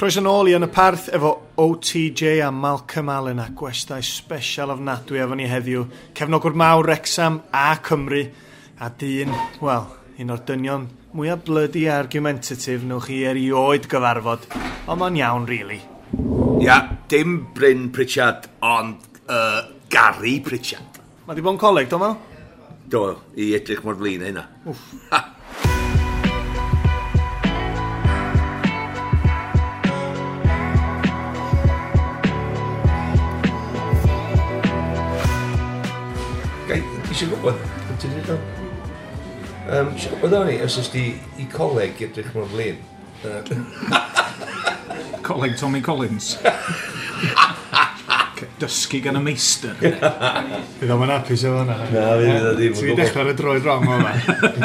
Croeso nôl i Yn y Parth efo OTJ a Malcolm Allen a gwestai special ofnadwy efo ni heddiw. Cefnogwr mawr Wrexham a Cymru a dyn, wel, un o'r dynion mwyaf bloody argumentative newch chi erioed gyfarfod. Ond mae'n iawn, really. Ia, dim Bryn Pritchard, ond Gary Pritchard. Mae di bod yn coleg, do Mal? Do, i edrych mor flin â hynna. Wff. Gai, eisiau gwybod, ti'n dweud o? Eisiau gwybod o'n i, os ys di i coleg i edrych mor flin. Coleg Tommy Collins. Dysgu gan y meistr. Fydd o'm yn hapus efo hwnna. Na, fydd o ddim. Ti wedi dechrau ar y droed wrong o yma.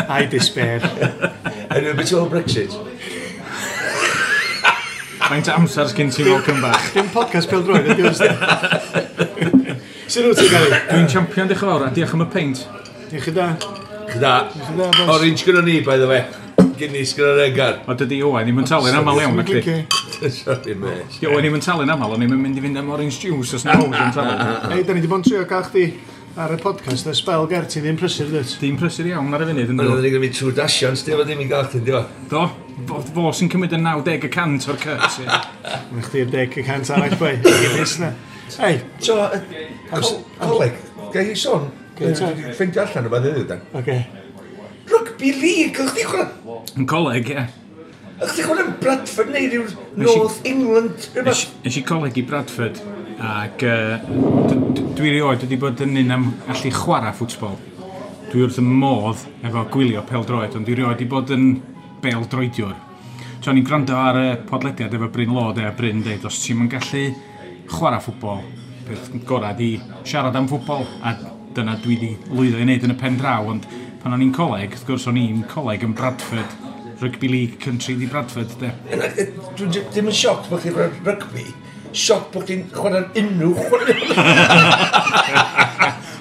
I despair. Anyway, beth ti'n meddwl Brexit? Faint o amser sgyn ti Malcolm bach? Dim podcast pêl droed, ydy o. Sut wyt ti'n Gary? Dwi'n champion, diolch yn fawr, a diolch am y peint. Diolch i da. Diolch i da. Diolch i da, boys. Orange gyda ni, by the way. Guinness gyda Regan. O, dydy Owain ddim yn talu'n aml iawn, ac di. Sorry, mate. Di Owain ddim yn talu'n aml, o'n i'm yn mynd i fynd am orange juice os na Owain yn talu. Ei, da ni wedi bod yn trio gael chdi ar y podcast, y spel ger, ti ddim prysur, dwyt? Dim prysur iawn ar y funud, yn Ond dod. oedden ni'n gwneud trwy dasion, sti, ddim i gael chdi, di Do, fo sy'n cymryd y 90% o'r cut, ie. Mae chdi'r 10% arall, boi. Guinness na. Ei, So, coleg, gai i sôn? Ffeindio allan o beth heddiw, dan. oce. Rugby League, o'ch chdi chwarae... Yn coleg, ie. O'ch chdi chwarae yn Bradford neu ryw North England, rhywbeth? Nes i coleg i Bradford, ac dwi erioed wedi bod yn un am allu chwarae ffwtbol. Dwi wrth y modd efo gwylio pêl-droed, ond dwi erioed wedi bod yn bêl-droediwr. So o'n i'n gwrando ar y podlediad efo Bryn Law, de, a Bryn deud, os ti'n yn gallu chwarae ffwtbol, peth gorau di siarad am ffwtbol, a dyna dwi wedi lwyddo i wneud yn y pen draw, ond pan o'n i'n coleg, wrth gwrs o'n i'n coleg yn Bradford, Rugby League Country di Bradford, de. Dwi'n ddim yn sioc bod chdi'n chwarae rygbi, sioc bod chdi'n chwarae unrhyw chwarae.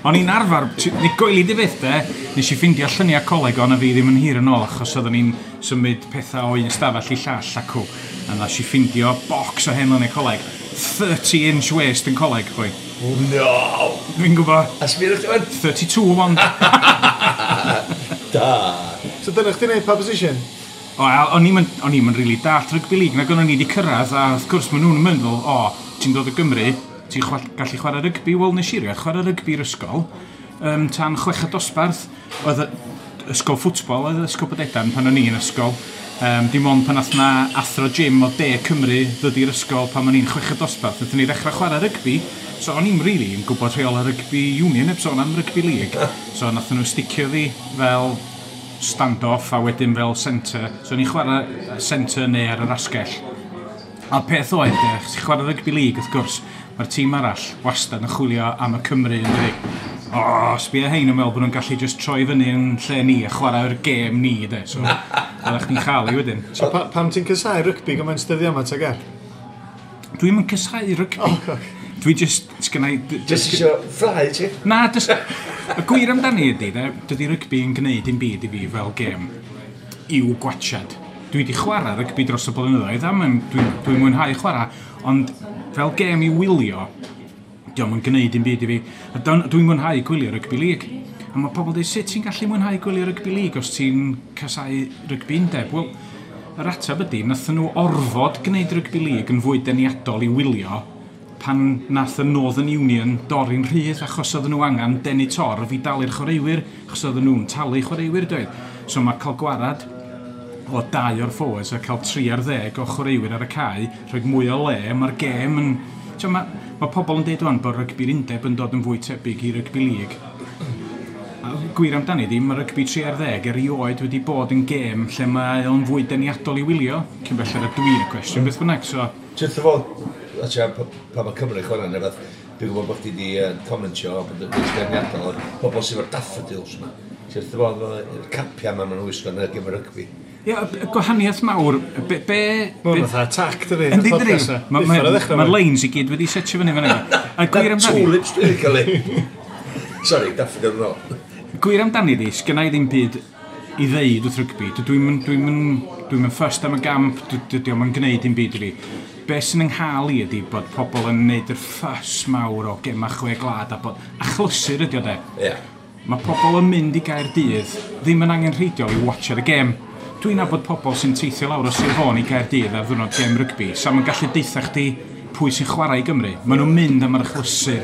O'n i'n arfer, ni goeli di fyth de, nes i ffindio lluniau coleg o'n a fi ddim yn hir yn ôl achos oedden ni'n symud pethau o un stafell i llall acw. A nes i ffindio box o hen luniau coleg. 30 inch waist yn coleg, boi. No! Fi'n gwybod, A sbio chdi fan? 32 ond. Da. So dyna chdi'n neud pa position? O, a o'n i'm yn really dallt rugby league, nag o'n i wedi cyrraedd, a wrth gwrs maen nhw'n mynd fel, o, ti'n dod o Gymru, ti'n gallu chwarae rygbi, wel nes i rioed chwarae rygbi i'r ysgol, tan chweched dosbarth, oedd ysgol ffwtbol, oedd ysgol Bodedan pan o'n i yn ysgol, dim ond pan nath na athro gym o De Cymru ddod i'r ysgol pan o'n i'n chweched dosbarth, nathon ni ddechrau chwarae rygbi, so o'n i'm really yn gwybod rheolau rygbi union, heb sôn am rygbi league, so nathon nhw sticio fi fel stand-off a wedyn fel centre. So o'n i'n chwarae centre neu ar yr asgell. A'r peth oedd, de, chos ti'n chwarae rugby league, wrth gwrs, mae'r tîm arall wastad yn chwilio am y Cymru yn dydi. O, sbia hein yn meddwl bod nhw'n gallu just troi fyny yn lle ni a chwarae'r gêm ni, de. So, oeddech chdi'n chael ei wedyn. So pam ti'n casau rygbi gymaint dyddiau yma, ta ger? Dwi'm yn casau rygbi. Oh, okay. Dwi just, sgynna i... Just isio ffrau, ti? Na, just, y gwir amdani ydy, de, dydy rygbi yn gwneud dim byd i fi fel gêm i'w gwachad. Dwi wedi chwarae rygbi dros y blynyddoedd, a dwi'n mwynhau chwarae, ond fel gêm i wylio, dio'm yn gwneud dim byd i fi. A dwi'n mwynhau gwylio rygbi league. A mae pobl yn dweud, sut ti'n gallu mwynhau gwylio rygbi league os ti'n casau rygbi undeb? Wel, yr ateb ydy, nathon nhw orfod gwneud rygbi league yn fwy deniadol i wylio pan nath y Northern Union dorri'n rhydd achos oedden nhw angen denu torf i dalu'r chwaraewyr, achos oedden nhw'n talu chwaraewyr, doedd. So mae cael gwarad o 2 o'r forwards a cael 3 ar 10 o chwaraewyr ar y cae, rhoi mwy o le, mae'r gêm yn... Tio, mae pobl yn deud wan bod rygbi'r undeb yn dod yn fwy tebyg i rygbi league. A gwir amdani di, mae rygbi 3 ar 10 erioed wedi bod yn gêm lle mae o'n fwy deniadol i wylio, cyn belled a dwi'n y cwestiwn, beth bynnag, so... Truth of all, a ti'n pan mae Cymru chwarae neu beth, dwi'n gwybod bod chdi wedi commentio bod yn deniadol o'r pobl sydd efo'r daffodils yma. Ti'n wrth fo, y capia yma maen nhw'n wisgo yn y gêm rygbi. Ie, y gwahaniaeth mawr, be... Mae'n fatha attack, dydi? Yndi, dydi? Mae'r lines i gyd wedi setio fyny fan yna. A gwir amdani... Tulips dwi wedi cael ei... Sorry, daffodil yn ôl. Gwir amdani di, sgynna i ddim byd i ddeud wrth rygbi. Dwi'n fussed am y gamp, dydy o'm yn gwneud dim byd i fi. Be sy'n yng nghael i ydy bod pobl yn neud yr ffys mawr o gema chwe gwlad a bod achlysur ydy o de. Ie. Mae pobl yn mynd i Gaerdydd ddim yn angenrheidiol i watchad y gêm. Dwi'n nabod pobl sy'n teithio lawr o Sir Fôn i Gaerdydd ar ddwrnod gêm rygbi. Sa ma'n gallu deutha chdi pwy sy'n chwarae i Gymru. Maen nhw'n mynd am yr achlysur.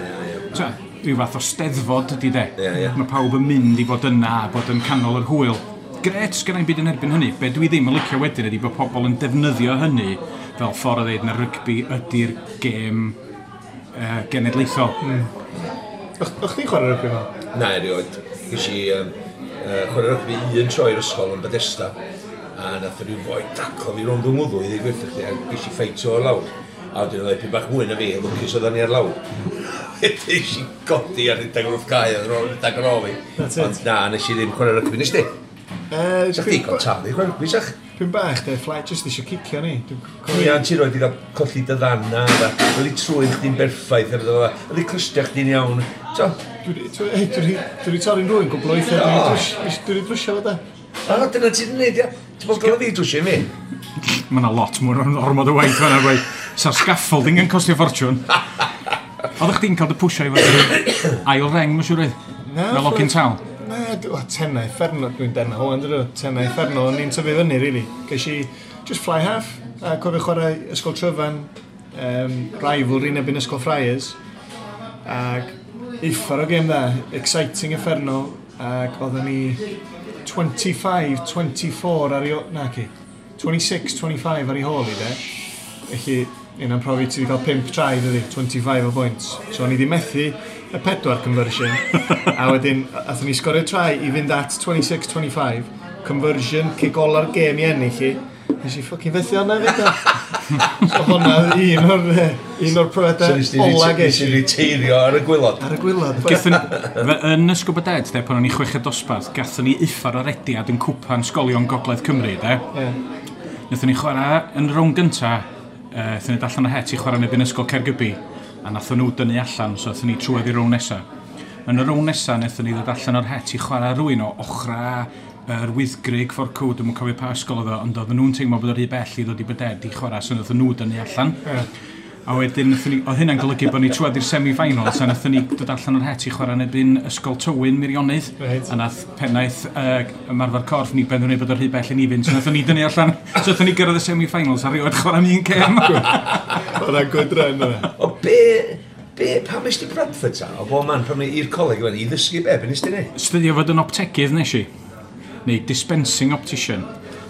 Ta, rhyw fath o steddfod ydy de. Ie, ie. Mae pawb yn mynd i fod yna a bod yn canol yr hwyl. Gret, sgynna i'm byd yn erbyn hynny. Be dwi ddim yn licio wedyn ydy bod pobl yn defnyddio hynny fel ffordd o ddeud na rygbi ydy'r gêm genedlaethol. O'ch chdi'n chwarae rygbi fel? Na, erioed. Ges i chwarae rygbi un tro i'r ysgol yn Bethesda. A nath rhyw foi daclo fi rownd yng ngwddw i ddweud gwirth chdi, a ges i ffeit o'r lawr. A wedyn oedd ipyn bach mwy na fi, lwcus oedden ni ar lawr. Wedyn nes i godi a rhedeg wrth cae, a rhedeg ar ôl fi. That's it. Ond na, nes i ddim chwarae rygbi, nes di? Sa chdi gael talu chwarae rygbi, sach? Dwi'n bach, de, fly, just eisiau cicio ni. Dwi'n Ie, cofio- ti roed i gael colli dy ddanna, oedd i trwy'n chdi'n berffaith, oedd i clustia chdi'n iawn. So, Dwi 'di torri'n rhywun gwbl o weithiau, dwi 'di drwsio fo da. a dyna ti'n neud, ia. Ti'n bod gael fi drwsio i mi? Mae yna lot mwy o'r ormod o waith fan'na, boi. Sa'r scaffolding yn costio ffortiwn. Oeddech chdi'n cael dy pwysio i fod yn ail reng, mae'n siŵr oedd? Na, Fel ogyn tal. Na, tenau uffernol, dwi'n denau wan, dydw, tenau uffernol, o'n i'n tyfu fyny, really. Ges i just fly half, a cofio chwarae Ysgol Tryfan, rivalry yn erbyn Ysgol Friars, ac uffar o gêm dda, exciting uffernol, ac oedden ni 25-24 ar ei... Na, ci, 26-25 ar ei hôl i, de. Felly, un am profi ti wedi cael 5 try, dydi, 25 o points. So, o'n i wedi methu y pedwar conversion, a wedyn, athon ni sgorio try i fynd at 26-25, conversion, kick ola'r gêm i ennill i. Nes i fucking fethu hwnna fyd o. So hwnna un o'r So profiadau nes ola ti ges i. reteirio ar y gwylod. Ar y gwylod. Gathon, yn Ysgol Dead, de, pan o'n i chweched dosbarth, gathon ni uffar o rediad yn cwpan sgolion Gogledd Cymru, de. Ie. Nathon ni chwarae yn y rownd gynta, nathon ni allan o het i chwarae yn erbyn Ysgol Caergybi, a nathon nhw dynnu allan, so nathon ni trwedd i'r rownd nesa. Yn y rownd nesa, nathon ni ddod allan o'r het i chwarae rhywun o ochra yr Wyddgrug ffordd cw, dwi'm yn cofio pa ysgol oedd o, ond oedden nhw'n teimlo bod o rhy bell i ddod i Byded i chwarae, so nathon nhw dynnu allan. Ie. A wedyn, nathon ni, oedd hynna'n golygu bod ni trwedd i'r semi-finals, a nathon ni dod allan o'r het i chwarae yn erbyn Ysgol Tywyn Meirionnydd. Reit. A nath pennaeth ymarfer corff ni benderfynu bod o'r rhy bell i ni fynd, so nathon ni dynnu allan. So nathon ni gyrraedd y semi-finals a rioed chwarae am un gêm. Hwnna'n good run yna. O be, pam nes ti Bradford ta? O bo man, pam ni i'r coleg yma, i ddysgu be nes ti neud? Studio fod yn optegydd nes i. Neu dispensing optician.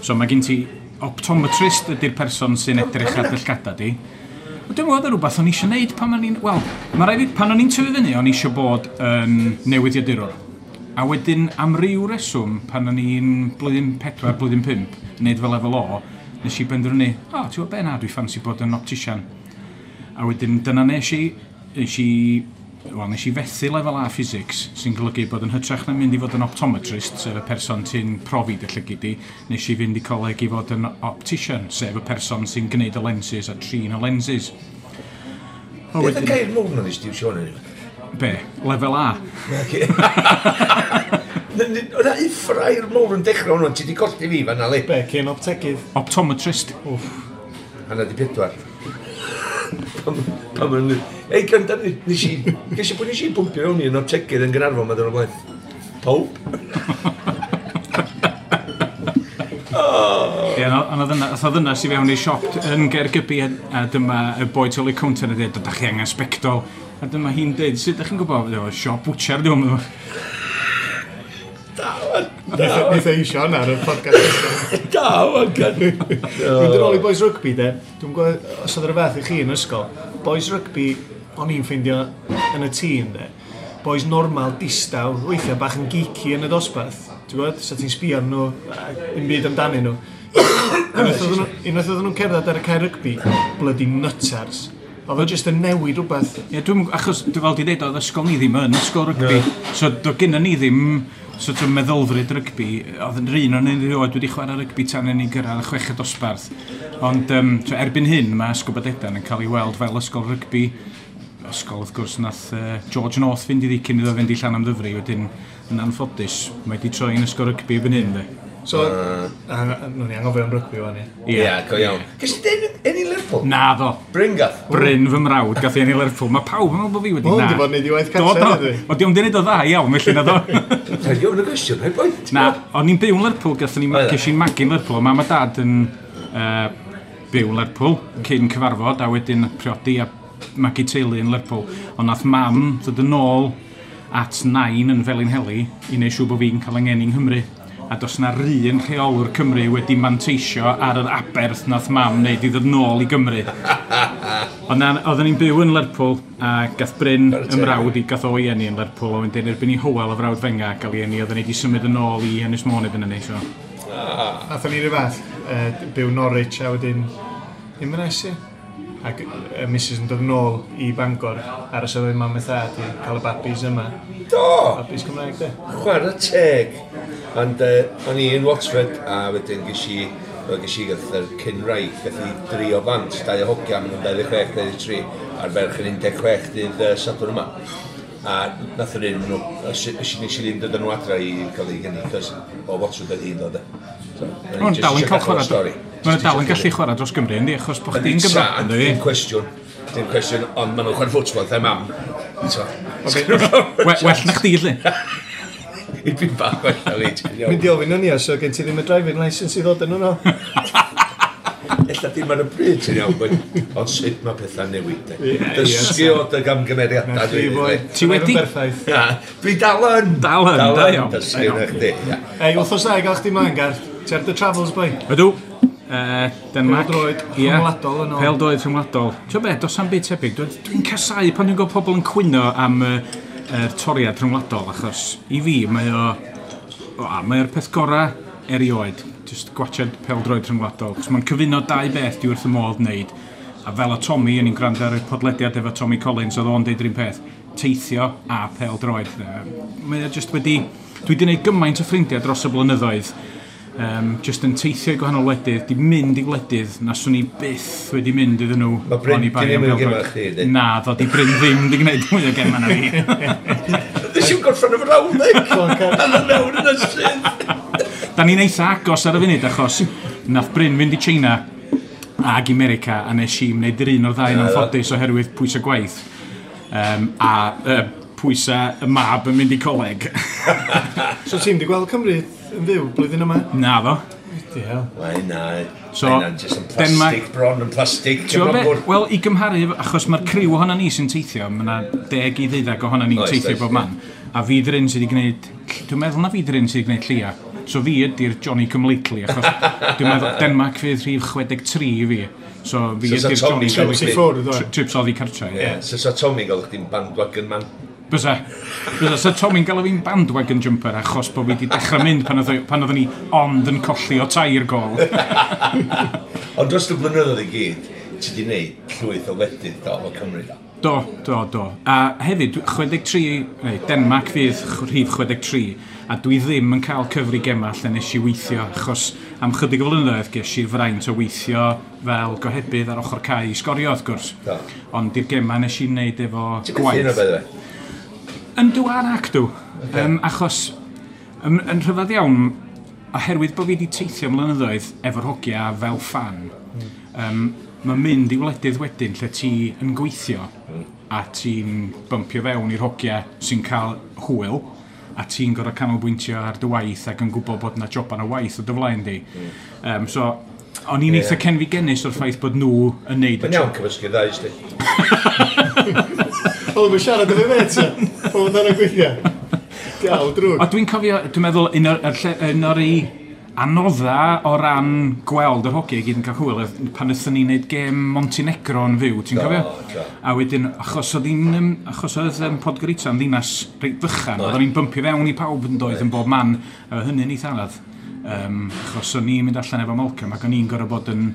So mae gen ti optometrist ydy'r person sy'n edrych ar dy llgada di. Wel, dwi'n meddwl oedd rhywbeth o'n i eisiau neud pan o'n i'n... Wel, mae rhaid fi, pan o'n i'n tyfu fyny, o'n i eisiau bod yn newyddiadurwr. A wedyn, am ryw reswm, pan o'n i'n blwyddyn 4, blwyddyn 5, neud fel lefel O, nes i benderfynu, o, ti'n gwybod be na, dwi ffansi bod yn optician. A wedyn, dyna nes i fethu lefel A physics, sy'n golygu bod yn hytrach na mynd i fod yn optometrist, sef y person sy'n profi dy llygid di, nes i fynd i coleg i fod yn optician, sef y person sy'n gwneud y lenses a trin y lenses. A Beth y wedyn, gair mowr na nes ti iwsio hwnna? be? Lefel A. O'na uffrair mowr yn dechrau hwnnw, ti di colli fi fan'na li. Be, cyn optegydd. Optometrist. Wff. Hanna di pedwar. Pam yn... Ei, gynta, nes i... Ges i pwy nes i bwmpio mewn i yn optegydd yn Gaernarfon, ma dyn nhw'n blaen. Pawb. Ie, ond oedd ddynas i fewn i siop yn Gaergybi a dyma y boi tu ôl i'r counter yn dweud, ydych chi angen sbectol. A dyma hi'n dweud, sut ydych chi'n gwybod? O, siop bwtsiar, dwi'n meddwl. Da, wan. Neith e isio hwnna ar y podcast. Da, wan, gan. Dwi'n dod ôl i boys rugby, de. Dwi'n gwybod os oedd rhywbeth i chi yn ysgol. Boys rugby, o'n i'n ffeindio yn y tîm, de. Boys normal, distaw, weithiau bach yn geeky yn y dosbarth. Ti'n gwybod? Sa ti'n sbio arnyn nhw, a dim byd amdanyn nhw. Unwaith oedden nhw'n cerdded ar y cae rygbi, bloody nutters. Oedd o jyst yn newid rhywbeth. Ie, dwi'n, achos, dwi fel di dweud, oedd ysgol ni ddim yn ysgol rygbi. So, do gynna ni ddim sort of meddylfryd rygbi. Oedd yn rhan o'n erioed wedi chwarae rygbi tan yn ei gyrraedd y chweched dosbarth. Ond so, erbyn hyn, mae Ysgol Bodedan yn cael ei weld fel ysgol rygbi. Ysgol, wrth gwrs, nath George North fynd iddi cyn iddo fynd i Llanymddyfri. Wedyn, yn anffodus, mae wedi troi'n ysgol rygbi erbyn hyn, de. So, nhw'n i anghofio am rygbi wan, ie. Ie, go iawn. Ges ti enni Lerpwl? Na ddo. Bryn gath? Bryn fy mrawd gath i enni Lerpwl. Mae pawb yn meddwl bod fi wedi na. Mae hwn di bod yn neud i waith cartre, dwi. O, di o'n di wneud o dda iawn, felly na ddo. Rhaid i ofyn y gwestiwn, rhaid boi. Na, o'n i'n byw yn Lerpwl, gath ni, ges i'n magu'n Lerpwl. Mam a dad yn byw yn Lerpwl cyn cyfarfod, a wedyn priodi a magu teulu yn Lerpwl. Ond nath mam ddod yn ôl at nain yn Felinheli i wneud siŵr bod fi'n cael yng ngeni yng Nghymru. A does na run rheolwr Cymru wedi manteisio ar yr aberth nath mam wneud i ddod nôl i Gymru. Ond na, oedden ni'n byw yn Lerpwl a gath Bryn ymrawd i gath o'i eni yn Lerpwl a wedyn erbyn i Hywel o frawd fenga gael ei eni oedden ni wedi symud yn ôl i Ynys Môn erbyn hynny. So. Nathon ni ryw fath, byw Norwich a wedyn Inverness, ie. Ac y missus yn dod nôl i Bangor ar y sefyll mam a thad i cael y babis yma. Do! Babis Cymraeg, de. Chwarae teg. Ond o'n i yn Watford a wedyn ges i gath yr cyn-wraig, gath i dri o bant, dau o hogia, maen nhw'n 26, 23, a'r ferch yn 16 dydd Sadwrn yma. A nath yr un, nes i ddim dod â nhw adra i gael ei geni, cos o Watford oedd hi'n dod. So, o'n dal yn cael chwarae. Mae'n dal yn gallu chwarae dros Gymru, yndi, achos bod chdi'n Gymro. Dim cwestiwn, dim cwestiwn, ond maen nhw'n chwarae ffwtbol, dda mam. Well na chdi, lle. I byn bach well na fi. Mynd i ofyn yn i, so gen ti ddim y driving licence i ddod yn nhw. Ella dim ar y bryd, ti'n iawn, ond sut mae pethau'n newid. Dysgu o dy gamgymeriadau. Ti wedi? Dwi dal yn. Dal yn, da iawn. Dysgu na chdi. Ei, wythnos da i gael chdi mlaen, Gar. Ti ar dy travels, boi? Ydw. Denmark. Pêl-droed rhyngwladol yn ôl. Pêl-droed rhyngwladol. Ti'n be, does am byd tebyg. Dwi'n casau pan dwi'n gweld pobl yn cwyno am yr toriad rhyngwladol, achos i fi mae o... Mae'r peth gorau erioed, just gwachod pêl-droed rhyngwladol, achos mae'n cyfuno dau beth dwi wrth y modd wneud. A fel o Tommy, o'n i'n gwrando ar y podlediad efo Tommy Collins, oedd o'n deud yr un peth, teithio a pêl-droed. Mae o just wedi... Dwi wedi gwneud gymaint o ffrindiau dros y blynyddoedd, just yn teithio i gwahanol wledydd, di mynd i wledydd na swn i byth wedi mynd iddyn nhw. Mae Bryn di ddim yn gema chdi, ydy? Na, ddod i Bryn ddim di gwneud mwy o gema na fi. Nes i'n gorffen y frawddeg! A dda mewn yn y sydd! Da ni'n eitha agos ar y funud achos nath Bryn fynd i China ag i America a nes i wneud yr un o'r ddau yn anffodus oherwydd pwysau gwaith. A pwysau y mab yn mynd i coleg. So ti'n di gweld Cymru yn fyw blwyddyn yma? Na fo. Ydy hel. Mae na, so, mae jyst yn plastig bron, yn plastig. Wel, i gymharu, achos mae'r criw ohono ni sy'n teithio, mae yna 10 i 12 ohono ni'n teithio bob man. A fi dyn sydd wedi gwneud, dwi'n meddwl na fi dyn sydd wedi gwneud llia. So fi ydy'r Johnny Come Lately, achos dwi'n meddwl Denmark fydd rhif 63 i fi. So fi ydy'r Johnny Come Lately. Trips oddi cartre. Ie, so sa Tommy gael chdi'n bandwagon man. Bysa. Bysa. So Tommy'n galw fi'n bandwagon jumper achos bod fi wedi dechrau mynd pan oeddwn ni ond yn colli o 3 gol. Ond dros y blynyddoedd i gyd, ti wedi gwneud llwyth o wledydd do, o Cymru. Do, do, do. A hefyd, 63, neu Denmark fydd rhif 63, a dwi ddim yn cael cyfri gema lle nes i weithio, achos am chydig o flynyddoedd ges i'r fraint o weithio fel gohebydd ar ochr cae i sgorio, wrth gwrs. Do. Ond i'r gema nes i wneud efo gwaith. Ti'n methu hynna, by the way? Yndw a'r acdw. Okay. Achos, yn rhyfedd iawn, oherwydd bod fi wedi teithio mlynyddoedd efo'r hogia fel fan, mae'n mynd i wledydd wedyn lle ti yn gweithio a ti'n bympio fewn i'r hogia sy'n cael hwyl a ti'n gorfod canolbwyntio ar dy waith ac yn gwybod bod yna joban o waith o dy flaen di. So, o'n i'n eitha cenfigennus o'r ffaith bod nhw yn neud y Mae'n iawn cymysgu'r ddau, ysdi. O, mae'n siarad efo fe, O, mae'n gweithio. Diawl, drwg. O, dwi'n cofio, dwi'n meddwl, un o'r anodda o ran gweld yr hogia i gyd yn cael hwyl, pan wnaethon ni wneud gêm Montenegro yn fyw, ti'n cofio? Do. A wedyn, achos oedd Podgorica yn ddinas reit fychan, oedden ni'n bympio fewn i pawb yn doedd yn bob man, a hynny'n eitha anodd. Achos o'n i'n mynd allan efo Malcolm ac o'n i'n gorfod bod yn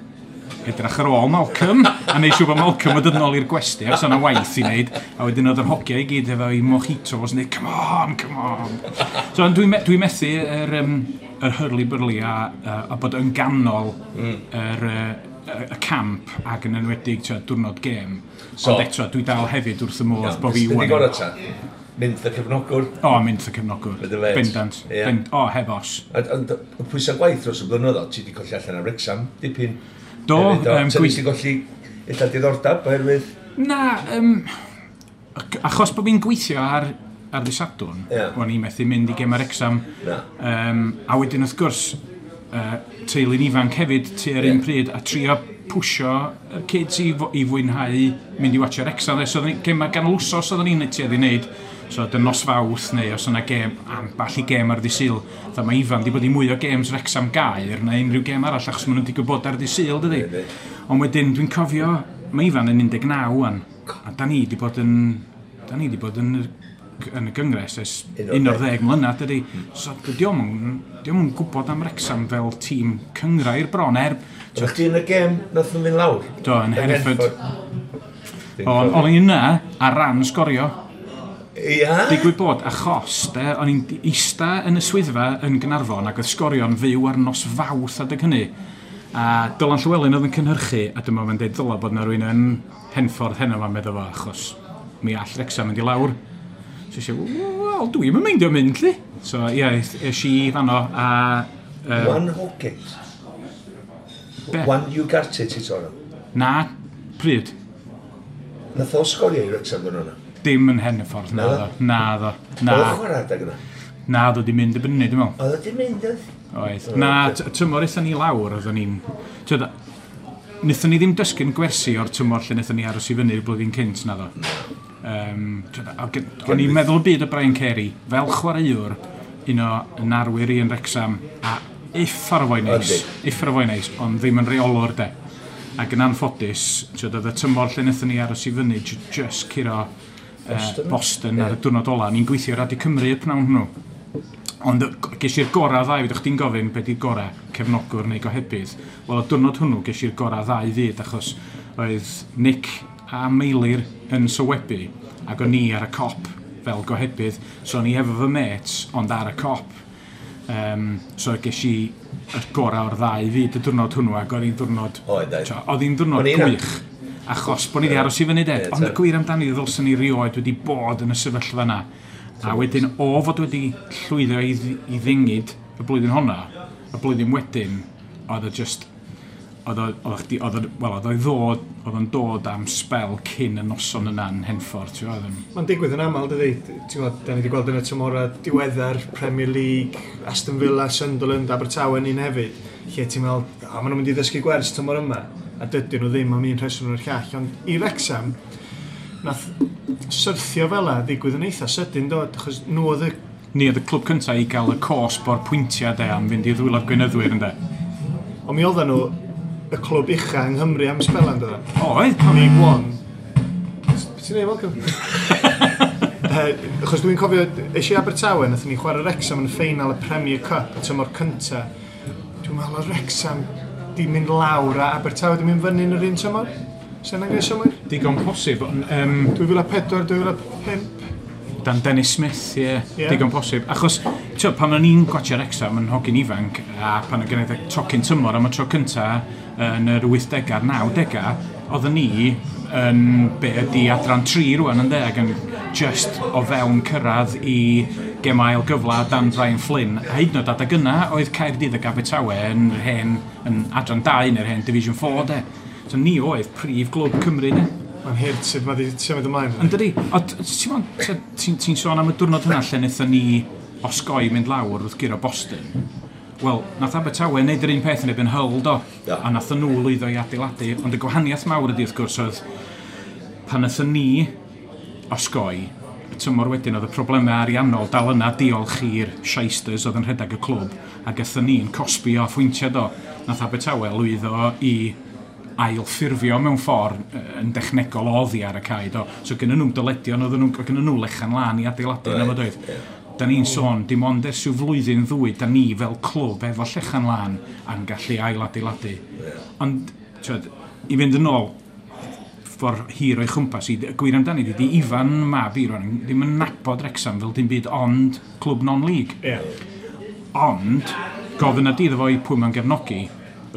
edrych ar ôl Malcolm a neud siŵr bod Malcolm yn dod nôl i'r gwesty achos o'na waith i wneud a wedyn oedd yr hogia i gyd efo i mojitos yn dweud come on, come on. So dwi'n methu yr hurly-burly a bod yn ganol y camp ac yn enwedig diwrnod gêm. So, ond eto dwi dal hefyd wrth y modd bod fi wan. Ti'n gorau ta? Mynd y cefnogwr. O, mynd y cefnogwr. Bendant. Yeah. O, heb os. Ond y pwysau gwaith dros y blynyddoedd, ti wedi colli allan ar Wrexham, dipyn. Do. Ti wedi colli illa diddordeb oherwydd? Na, achos bod fi'n gweithio ar ddydd Sadwrn, o'n i methu mynd i gem ar Wrexham. A wedyn wrth gwrs, teulu'n ifanc hefyd tua'r un pryd a trio pwsio y kids i fwynhau mynd i watchio Wrexham. So, gema ganol wsos oedden ni'n tueddu i wneud. So, dyn nos Fawrth neu os yna gêm, ambell i gêm ar ddydd Sul. Fatha mae Ifan di bod i mwy o games Wrexham Gaer na unrhyw gêm arall achos maen nhw'n digwydd bod ar ddydd Sul, dydy. Ond wedyn dwi'n cofio, mae Ifan yn 19 wan, a da ni di bod yn, da ni di bod yn y gyngres ers 11 mlynedd, dydy. So, dio'm yn gwybod am Wrexham fel tîm cynghrair bron, O'ch chdi yn y gêm nath nhw fynd lawr? Do, yn Hereford. O'n i yna ar ran sgorio. Ia? Digwydd bod, achos, de, o'n i'n eista yn y swyddfa yn Gaernarfon ac oedd sgorio'n fyw ar nos Fawrth adeg hynny. A Dylan Llywelyn oedd yn cynhyrchu, a dyma fe'n deud ddyla bod yna rhywun yn Henffordd heno ma'n meddwl fo, achos mi all Wrexham mynd i lawr. So eisiau, wel, dwi'm yn meindio mynd, lli. So, ie, es i fanno a... One Hawkins. Be? One Ugarte ti sôn am? Na, pryd? Nath o sgorio i Wrexham ddyn nhw? Dim yn Henffordd, na ddo. Na ddo. Na. Oedd o'n chwarae adeg yna? Na, ddo di mynd y byny, dwi'n meddwl. Oedd o di mynd, oedd? Oedd. Na, tymor aethon ni lawr, oedden ni'n... Wnaethon ni ddim dysgu'n gwersi o'r tymor lle wnaethon ni aros i fyny'r blwyddyn cynt, na ddo. O'n i'n meddwl y byd o Brian Carey, fel chwaraewr, un o narwyr i yn Wrexham, a uffar o foi neis, uffar o foi neis, ond ddim yn reolwr de. Ac yn anffodus, oedd y tymor lle wnaethon ni aros i fyny, just curo Boston ar y diwrnod ola. Ni'n gweithio Radio Cymru y pnawn hwnnw. Ond ges i'r gorau ddau, fydwch chdi'n gofyn be di'r gorau, cefnogwr neu gohebydd. Wel, y diwrnod hwnnw ges i'r gorau ddau fyd, achos oedd Nick a Meilir yn sylwebu, ac o'n i ar y cop fel gohebydd. So o'n i efo fy mates, ond ar y cop. So ges i y gorau o'r ddau fyd y diwrnod hwnnw, ac oedd hi'n diwrnod... Oedd hi'n diwrnod gwych. Achos bod ni wedi aros i fyny de. Ond y gwir amdani ddylswn ni rioed wedi bod yn y sefyllfa yna. A wedyn, o fod wedi llwyddo i ddingyd y blwyddyn honna, y blwyddyn wedyn, oedd o just... Oedd o'n dod am spel cyn y noson yna yn Henffordd. Mae'n digwydd yn aml, dydy. Da ni wedi gweld yn y tymorau diweddar, Premier League, Aston Villa, Sunderland, Abertawe yn un hefyd, lle ti'n meddwl, maen nhw'n mynd i ddysgu gwers tymor yma, a dydyn nhw ddim am un rheswm o'r llall. Ond i Wrexham, nath syrthio fel 'a ddigwydd yn eitha sydyn, do, achos nhw oedd y... Ni oedd y clwb cyntaf i gael y cosb o'r pwyntiau de am fynd i ddwylo'r gweinyddwyr, ynde. Ond mi oedden nhw y clwb ucha yng Nghymru am sbelan, dod? Oedd. League One. Be ti'n neud, Malcolm? Achos dwi'n cofio, es i Abertawe, nathon ni chwarae Wrexham yn y ffeinal y Premier Cup, y tymor cynta. Dwi'n meddwl oedd Wrexham di mynd lawr a Abertawe di mynd fyny yn yr un tymor. Sy'n angen symmwyr? Digon posib. 2004, 2005. Dan Dennis Smith, ie. Yeah. Digon posib. Achos, ti'n pan o'n i'n gwatio Wrexham yn hogyn ifanc, a pan o'n gwneud y tocyn tymor am y tro cynta yn yr 80au a'r 90au, oedden ni yn be ydi adran 3 rwan ynde, ac yn just o fewn cyrraedd i gem ail gyfla dan Brian Flynn. A hyd yn oed adeg yna oedd Caerdydd ac Abertawe yn hen, yn adran 2 neu'r hen Division 4 de. So ni oedd prif glwb Cymru de. Mae'n hurt sut mae wedi symud ymlaen. Yn dydi? Ti'n sôn am y diwrnod hwnna lle wnaethon ni osgoi mynd lawr wrth guro Boston. Wel, nath Abertawe wneud yr un peth yn erbyn Hull, do. Yeah. A nath nhw lwyddo i adeiladu. Ond y gwahaniaeth mawr ydi, wrth gwrs, oedd pan nathon ni osgoi, y tymor wedyn oedd y problemau ariannol dal yna diolch i'r shysters oedd yn rhedeg y clwb, ac aethon ni'n cosbi o phwyntiau do. Nath Abertawe lwyddo i ailffurfio mewn ffordd yn dechnegol oddi ar y cae, do. So gynnon nhw'n dyledion, oedden nhw, gynnon nhw lechan lan i adeiladu yna fo doedd. Da ni'n sôn, dim ond ers rhyw flwyddyn ddwy, da ni fel clwb efo llechan lan a'n gallu ailadeiladu. Ond, twed, i fynd yn ôl, ffordd hir o'i chwmpas i, gwir amdani, di Ifan mab i rwan, ddim yn nabod Wrexham fel dim byd ond clwb non-league. Yeah. Ond, gofyn ydi iddo fo i pwy mae'n gefnogi,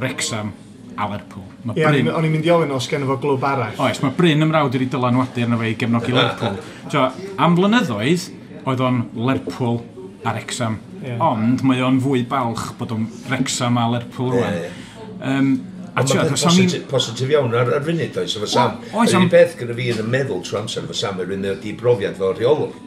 Wrexham a Lerpwl. Ie, o'n i'n mynd i ofyn os gen fo glwb arall. Oes, mae Bryn ymrawd wedi dylanwadu arno fe i gefnogi Lerpwl. So, am flynyddoedd, oedd o'n Lerpwl a Wrexham. Ond mae o'n fwy balch bod o'n Wrexham a Lerpwl rwan. A ti'n mae'n gwbod, positif iawn ar funud, oes, efo Sam. Oes, Yr unig beth gyda fi yn y meddwl trwy amser efo Sam, yr un di brofiad fel rheolwr.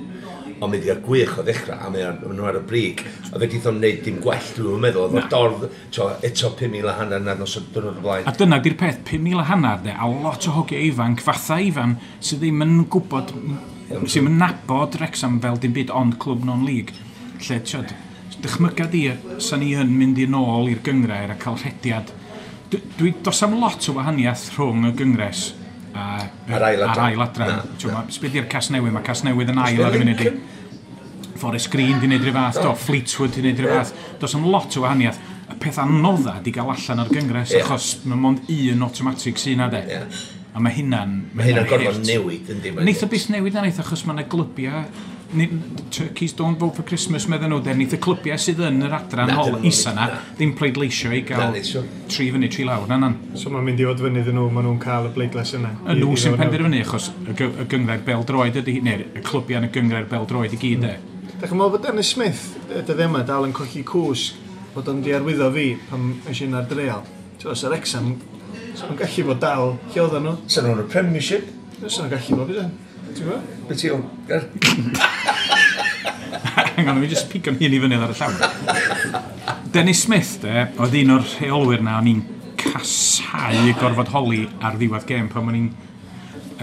Ond mae wedi cael gwych o ddechrau, a mae nhw ar y brig. A fe o'n wneud dim gwell, dwi'n meddwl. Oedd o'r dorf, to, eto 5,500 na nos o'r diwrnod o blaen. A dyna di'r peth, 5,500 de, a lot o hogiau ifanc, fatha Ifan, sydd ddim yn gwybod, sydd ddim yn nabod Wrexham fel dim byd ond clwb non-league. Lle, tiod, dychmyga di, sa ni yn mynd i nôl i'r gyngrair a cael rhediad. Dwi, dos am lot o wahaniaeth rhwng y gyngres a, A'r ail adran. a'r ail adran. Na, T'wo, Sbyd i'r Casnewydd, mae Casnewydd yn ail ar y funud i. Forest Green di wneud rhyw fath, do, Fleetwood di wneud rhyw fath. Dos am lot o wahaniaeth. Y peth anodda di gael allan o'r gyngres, achos mae mond un automatic sy'n na de. A mae hynna'n... Mae hynna'n gorfod hurt. newid, yndi? Neith o byth newid na neith, achos mae yna glybiau... Turkeys don't vote for Christmas, medden nhw, de. Neith y clybiau sydd yn yr adran Na, hol dyn nhw isa na, ddim, ddim pleidleisio i Na, gael neith so. tri fyny, tri lawr, na nan. So mae'n mynd i fod fyny iddyn nhw, maen nhw'n cael y bleidlais yna. Y nhw sy'n penderfynu, achos y gyngrair bel-droed ydy, neu'r y clybiau yn y gyngrair bel-droed i gyd, de. Da chi'n meddwl bod Dennis Smith, y dyddiau yma, dal yn colli cwsg, bod o'n di arwyddo fi pan es i ar dreal. Ti'n os yr Wrexham, so nhw'n gallu bod dal, lle oedden nhw? Sa'n nhw'n y Premiership? Sa nhw'n gallu bod, bydde? Ti'n gwybod? Be ti o'n... Hang on, mi just pigo'n hun i fyny ar y llawr. Dennis Smith, de, oedd un o'r rheolwyr na o'n i'n casau gorfod holi ar ddiwedd gêm pan o'n i'n...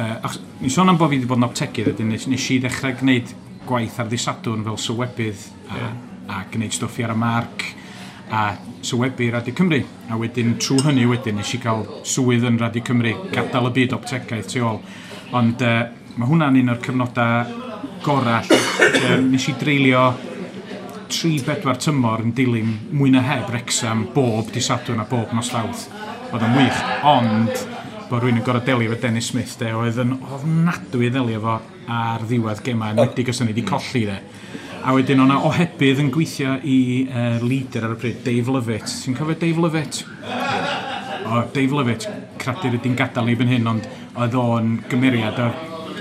Achos, ni'n sôn am bod fi wedi bod yn optegydd, wedyn nes i ddechrau gwneud gwaith ar ddydd Sadwrn fel sylwebydd a gwneud stwff i ar y marc a sylwebu Radio Cymru. A wedyn, trwy hynny wedyn, nes i gael swydd yn Radio Cymru, gadael y byd optegaeth tu ôl. Ond mae hwnna'n un o'r cyfnodau gorau lle nes i dreulio 3-4 tymor yn dilyn mwy na heb Wrexham bob dydd Sadwrn a bob nos Fawrth. Oedd o'n wych, ond bod rhywun yn gorfod delio efo Dennis Smith, de, oedd yn ofnadwy i ddelio efo ar ddiwedd gemau, enwedig os o'n i wedi colli, de. A wedyn o'na ohebydd yn gweithio i leader ar y pryd, Dave Lovett. Ti'n cofio Dave Lovett? O, Dave Lovett, cradur ydy'n gadael ni fan hyn, ond oedd o'n gymeriad.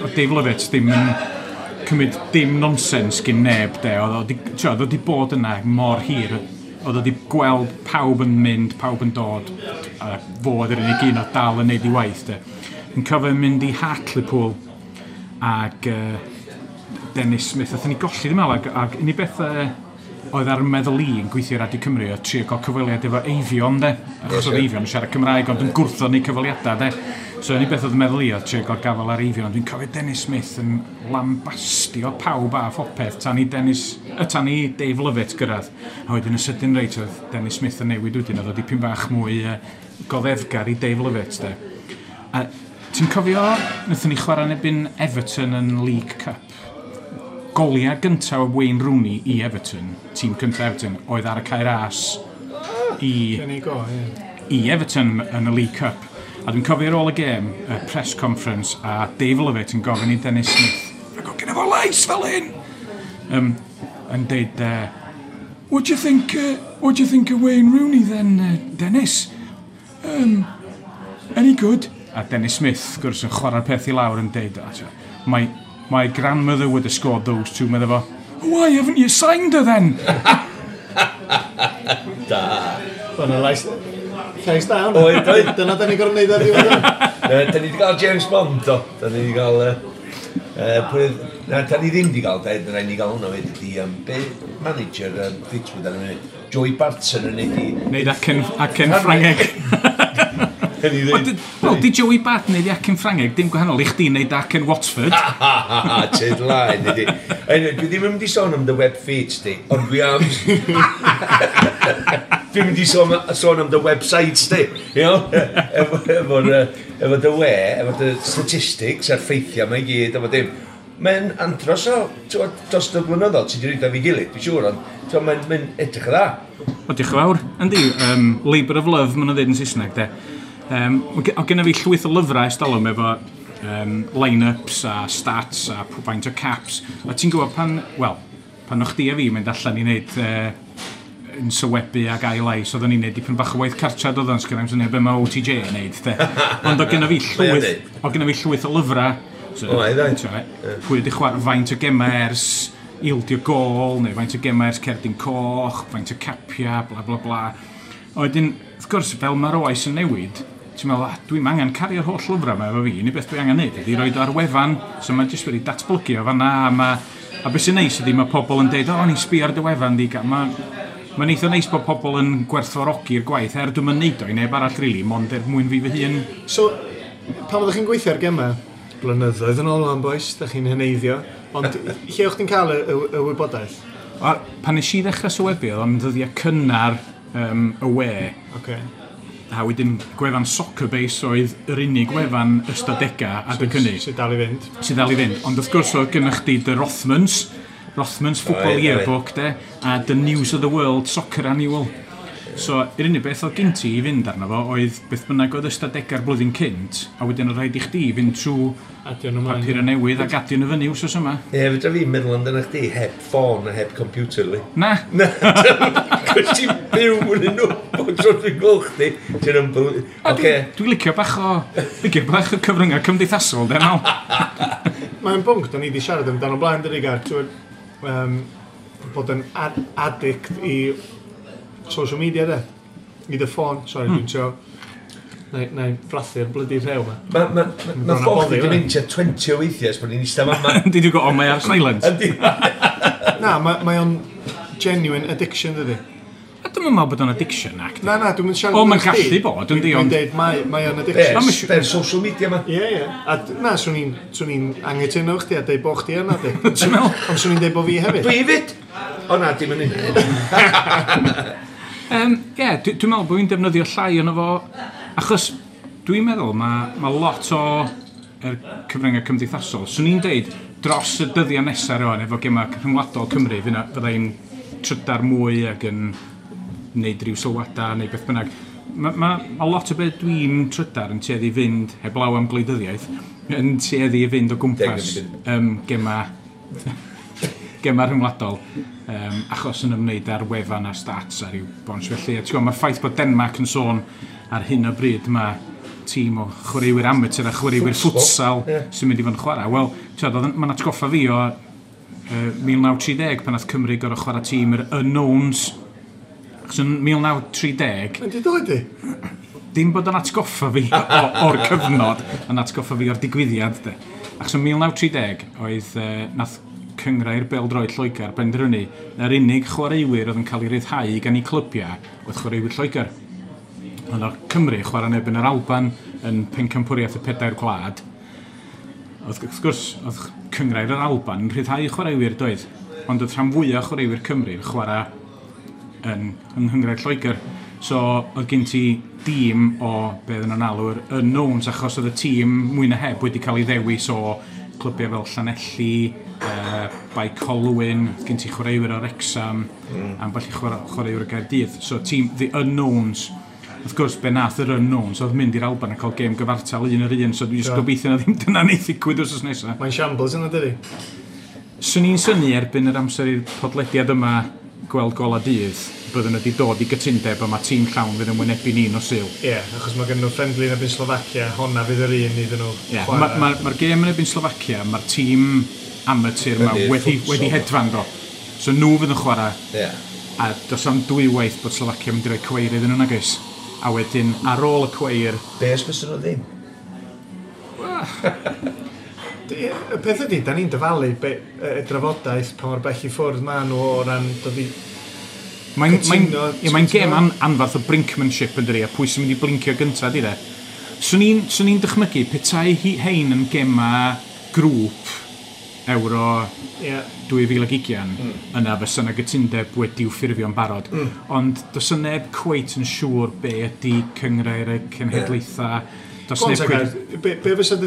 O Dave Lovett ddim yn cymryd dim nonsens gyn neb, de. Oedd o 'di, t'wo, oedd o 'di bod yna mor hir. Oedd o 'di gweld pawb yn mynd, pawb yn dod, a fo oedd yr unig un oedd dal yn neud i waith, de. Yn cofio mynd i Hartlepool ag Dennis Smith, athyn ni golli ddim meddwl, ag unig beth oedd ar meddwl i yn gweithio i Radio Cymru oedd trio cael cyfweliad efo Eifion, de. Achos oedd Eifion yn siarad Cymraeg, ond yn gwrthod ni cyfweliadau, de. So unig beth oedd yn meddwl i oedd trio cael gafel ar Eifion, ond dwi'n cofio Dennis Smith yn lambastio pawb a phopeth tan i tan i Dave Lovett gyrraedd. A wedyn yn sydyn reit oedd Dennis Smith yn newid wedyn, oedd o dipyn bach mwy goddefgar i Dave Lovett, de. A ti'n cofio, wnaethon ni chwarae yn erbyn Everton yn League Cup? Goliau gyntaf o Wayne Rooney i Everton, tîm cyntaf Everton, oedd ar y Cae Ras i, Gen i go, ie. i Everton yn y League Cup. A dwi'n cofio ar ôl y gêm, y press conference, a Dave Lovett yn gofyn i Dennis Smith, "Ac o gyda fo lais fel hyn!" Yn deud, What do you think of Wayne Rooney then, Dennis? Any good?" A Dennis Smith, wrth gwrs, yn chwarae'r peth i lawr yn deud, "Ah, My grandmother would have scored those two," medda fo. "Why haven't you signed her then?" Da. Oedd 'na lais da hwnna. Oedd, oedd. Dyna da ni gorfod neud ar ddiwedd hwn. Da ni wedi cael James Bond, do. Da ni wedi cael... Na, da ni ddim wedi cael, da ni wedi cael hwnna wedi, di, be manager Fleetwood ar y funud, Joey Barton yn neud i... Neud acen Ffrangeg. Ni Wel, Wel, di Joey Barton neud i acen Ffrangeg, dim gwahanol i chdi neud acen Watford. Ha, ha, ha, tyd laen, ydi. Anyway, dwi ddim yn mynd i sôn am dy web feeds di, ond dwi am... Dwi'n mynd i sôn am dy websites di, you know? Efo dy we, efo dy statistics a'r ffeithiau mae i gyd, efo dim. Mae'n andros o, t'wod, dros y blynyddoedd, ti wedi rhaid fi gilydd, dwi'n siŵr, ond t'wod, mae'n edrych yn dda. O, diolch yn fawr. Yndi, Labour of Love, maen nhw'n dweud yn Saesneg, de. O genna fi llwyth o lyfrau ers talwm efo line-ups a stats a faint o caps. A ti'n gwybod pan, wel, pan o'ch chdi a fi mynd allan i wneud yn sylwebu ag ail lais, oedden ni'n neud dipyn bach o waith cartra doedden, sgynna i'm syniad be mae OTJ yn neud, de. Ond o genna fi Mae o'n llwyth, neud. o genna fi llwyth o lyfrau. So, O, ai, dda. t'mo', pwy wedi chwarae faint o gemau ers ildio gol, neu faint o gemau ers cerdyn coch, faint o capia, bla bla bla. A wedyn, wrth gwrs, fel mae'r oes yn newid, ti'n meddwl, ah, dwi'n angen cario'r holl lyfrau yma efo fi, unig beth dwi angen neud ydy roed o ar wefan, so mae jyst wedi datblygu o fanna, a beth sy'n neis ydy mae pobl yn deud, o, ni'n sbio ar dy wefan di, mae'n eitha neis bod pobl yn gwerthfawrogi'r gwaith, er dwi'n neud o i neb arall, really, mond er mwyn fi fy hun. So, pan oeddech chi'n gweithio ar gemau, blynyddoedd yn ôl o'n boys, da chi'n heneiddio, ond lle o'ch chi'n cael y wybodaeth? A, pan nes i ddechrau sylwebu, oedd o'n ddyddiau cynnar y we. A wedyn gwefan Soccerbase oedd yr unig wefan ystadegau adeg hynny. Sydd dal i fynd. Sydd dal i fynd. Ond wrth gwrs oedd gennych chdi The Rothmans Football Yearbook, de, a The News of the World Soccer Annual. So, yr unig beth oedd gen ti i fynd arno fo oedd beth bynnag oedd ystadegau'r blwyddyn cynt, a wedyn oedd rhaid i chdi fynd trwy papur newydd ac adio nhw fyny wsos yma. Ie, fedra fi meddwl amdano chdi heb ffôn a heb computer, li. Na. Na, cos ti'n byw yn nhw, bod tro dwi'n gweld chdi. Ti'n unbelievable. Oce. Dwi'n licio bach o cyfryngau cymdeithasol, de, mal. Mae'n bwnc, da ni wedi siarad amdano blaen, dydi, Gar, bod yn addict i social media, de. I dy ffôn, sorry, dwi'n trio. Na i frathu'r blydi rhew ma. Mae ffôn chdi wedi mynd tua 20 o weithiau ers bod ni'n eistedd fama. Yndi, dwi'n gwybod, mae ar silent. Na, mae o'n genuine addiction, dydi. A dwi'n meddwl bod o'n addiction, ac. Na, dwi'n mynd siarad. O, mae'n gallu bod, yndi, ond dwi'n deud, mae o'n addiction. Be'r social media ma. Ie. A na, swn i'n anghytuno chdi a deud bo chdi yna, di. Ti'n meddwl? Ond swn i'n deud bo fi hefyd. Dwi hefyd! O na, dim yn un. Ie, dwi'n meddwl bod fi'n defnyddio llai ono fo, achos dwi'n meddwl mae lot o yr cyfryngau cymdeithasol. Swn i'n deud, dros y dyddiau nesaf rwan, efo gemau rhyngwladol Cymru, fydda i'n trydar mwy ac yn wneud rhyw sylwadau neu beth bynnag. Mae lot o beth dwi'n trydar yn tueddu i fynd, heblaw am gwleidyddiaeth, yn tueddu i fynd o gwmpas gemau rhyngwladol, achos yn ymwneud â'r wefan a stats a rhyw bons felly. A ti'n gwybod, mae'r ffaith bod Denmark yn sôn ar hyn o bryd mae tîm o chwaraewyr amateur a chwaraewyr futsal sy'n mynd i fod yn chwarae. Wel, ti'n gwybod, mae'n atgoffa fi o 1930 pan nath Cymru gorfod chwarae tîm yr Unknowns. Achos yn 1930... Mae'n di dod i? Dim bod yn atgoffa fi o'r cyfnod, yn atgoffa fi o'r digwyddiad, de. Achos yn 1930 oedd nath Cynghrair Bêl-droed Lloegr benderfynu na'r unig chwaraewyr oedd yn cael ei ryddhau gan eu clybiau oedd chwaraewyr Lloegr. Ond o'r Cymru chwarae yn erbyn yr Alban yn pencampwriaeth y pedair gwlad. Oedd, wrth gwrs, oedd Cynghrair yr Alban yn rhyddhau chwaraewyr doedd, ond oedd rhan fwyaf chwaraewyr Cymru yn chwarae yn Nghynghrair Lloegr. So oedd gen ti dîm o be oedden nhw'n alw'r Unknowns, achos oedd y tîm mwy na heb wedi cael ei ddewis o clybiau fel Llanelli, Bae Colwyn, gen ti chwaraewyr o Wrexham, ambell i chwaraewyr o Gaerdydd. So tîm The Unknowns. Wrth gwrs, be nath yr Unknowns oedd mynd i'r Alban a cael gêm gyfartal un yr un, so dwi'n just gobeithio na ddim dyna neith ddigwydd wsos nesaf. Mae'n shambles yna, dydi? Swn i'n synnu erbyn yr amser i'r podlediad yma gweld gola dydd, byddwn nhw wedi dod i gytundeb a mae tîm llawn fydd yn wynebu ni nos Sul. Ie, achos mae gen nhw friendly yn erbyn Slofacia, honna fydd yr un iddyn nhw chwarae. Mae'r gêm yn erbyn Slofacia, mae'r tîm amateur yma wedi hedfan do. So nhw fydd yn chwarae. Yeah. A does am dwywaith bod Slofacia yn mynd i roi cweir iddyn nhw, nag oes? A wedyn, ar ôl y cweir... Be os fysa nhw ddim? Y peth ydy, da ni'n dyfalu y drafodaeth pa mor bell i ffwrdd ma nhw o ran dod i Mae'n gêm anfarth o brinkmanship yn dydi, a pwy sy'n mynd i blincio gyntaf, di de. Swn i'n dychmygu, petai hein yn gema grŵp Euro 2020, yna fysa yna gytundeb wedi'w ffurfio'n barod. Ond does yna neb cweit yn siŵr be ydy cynghrair y cenhedlaethau. Does neb cweit... Be fysa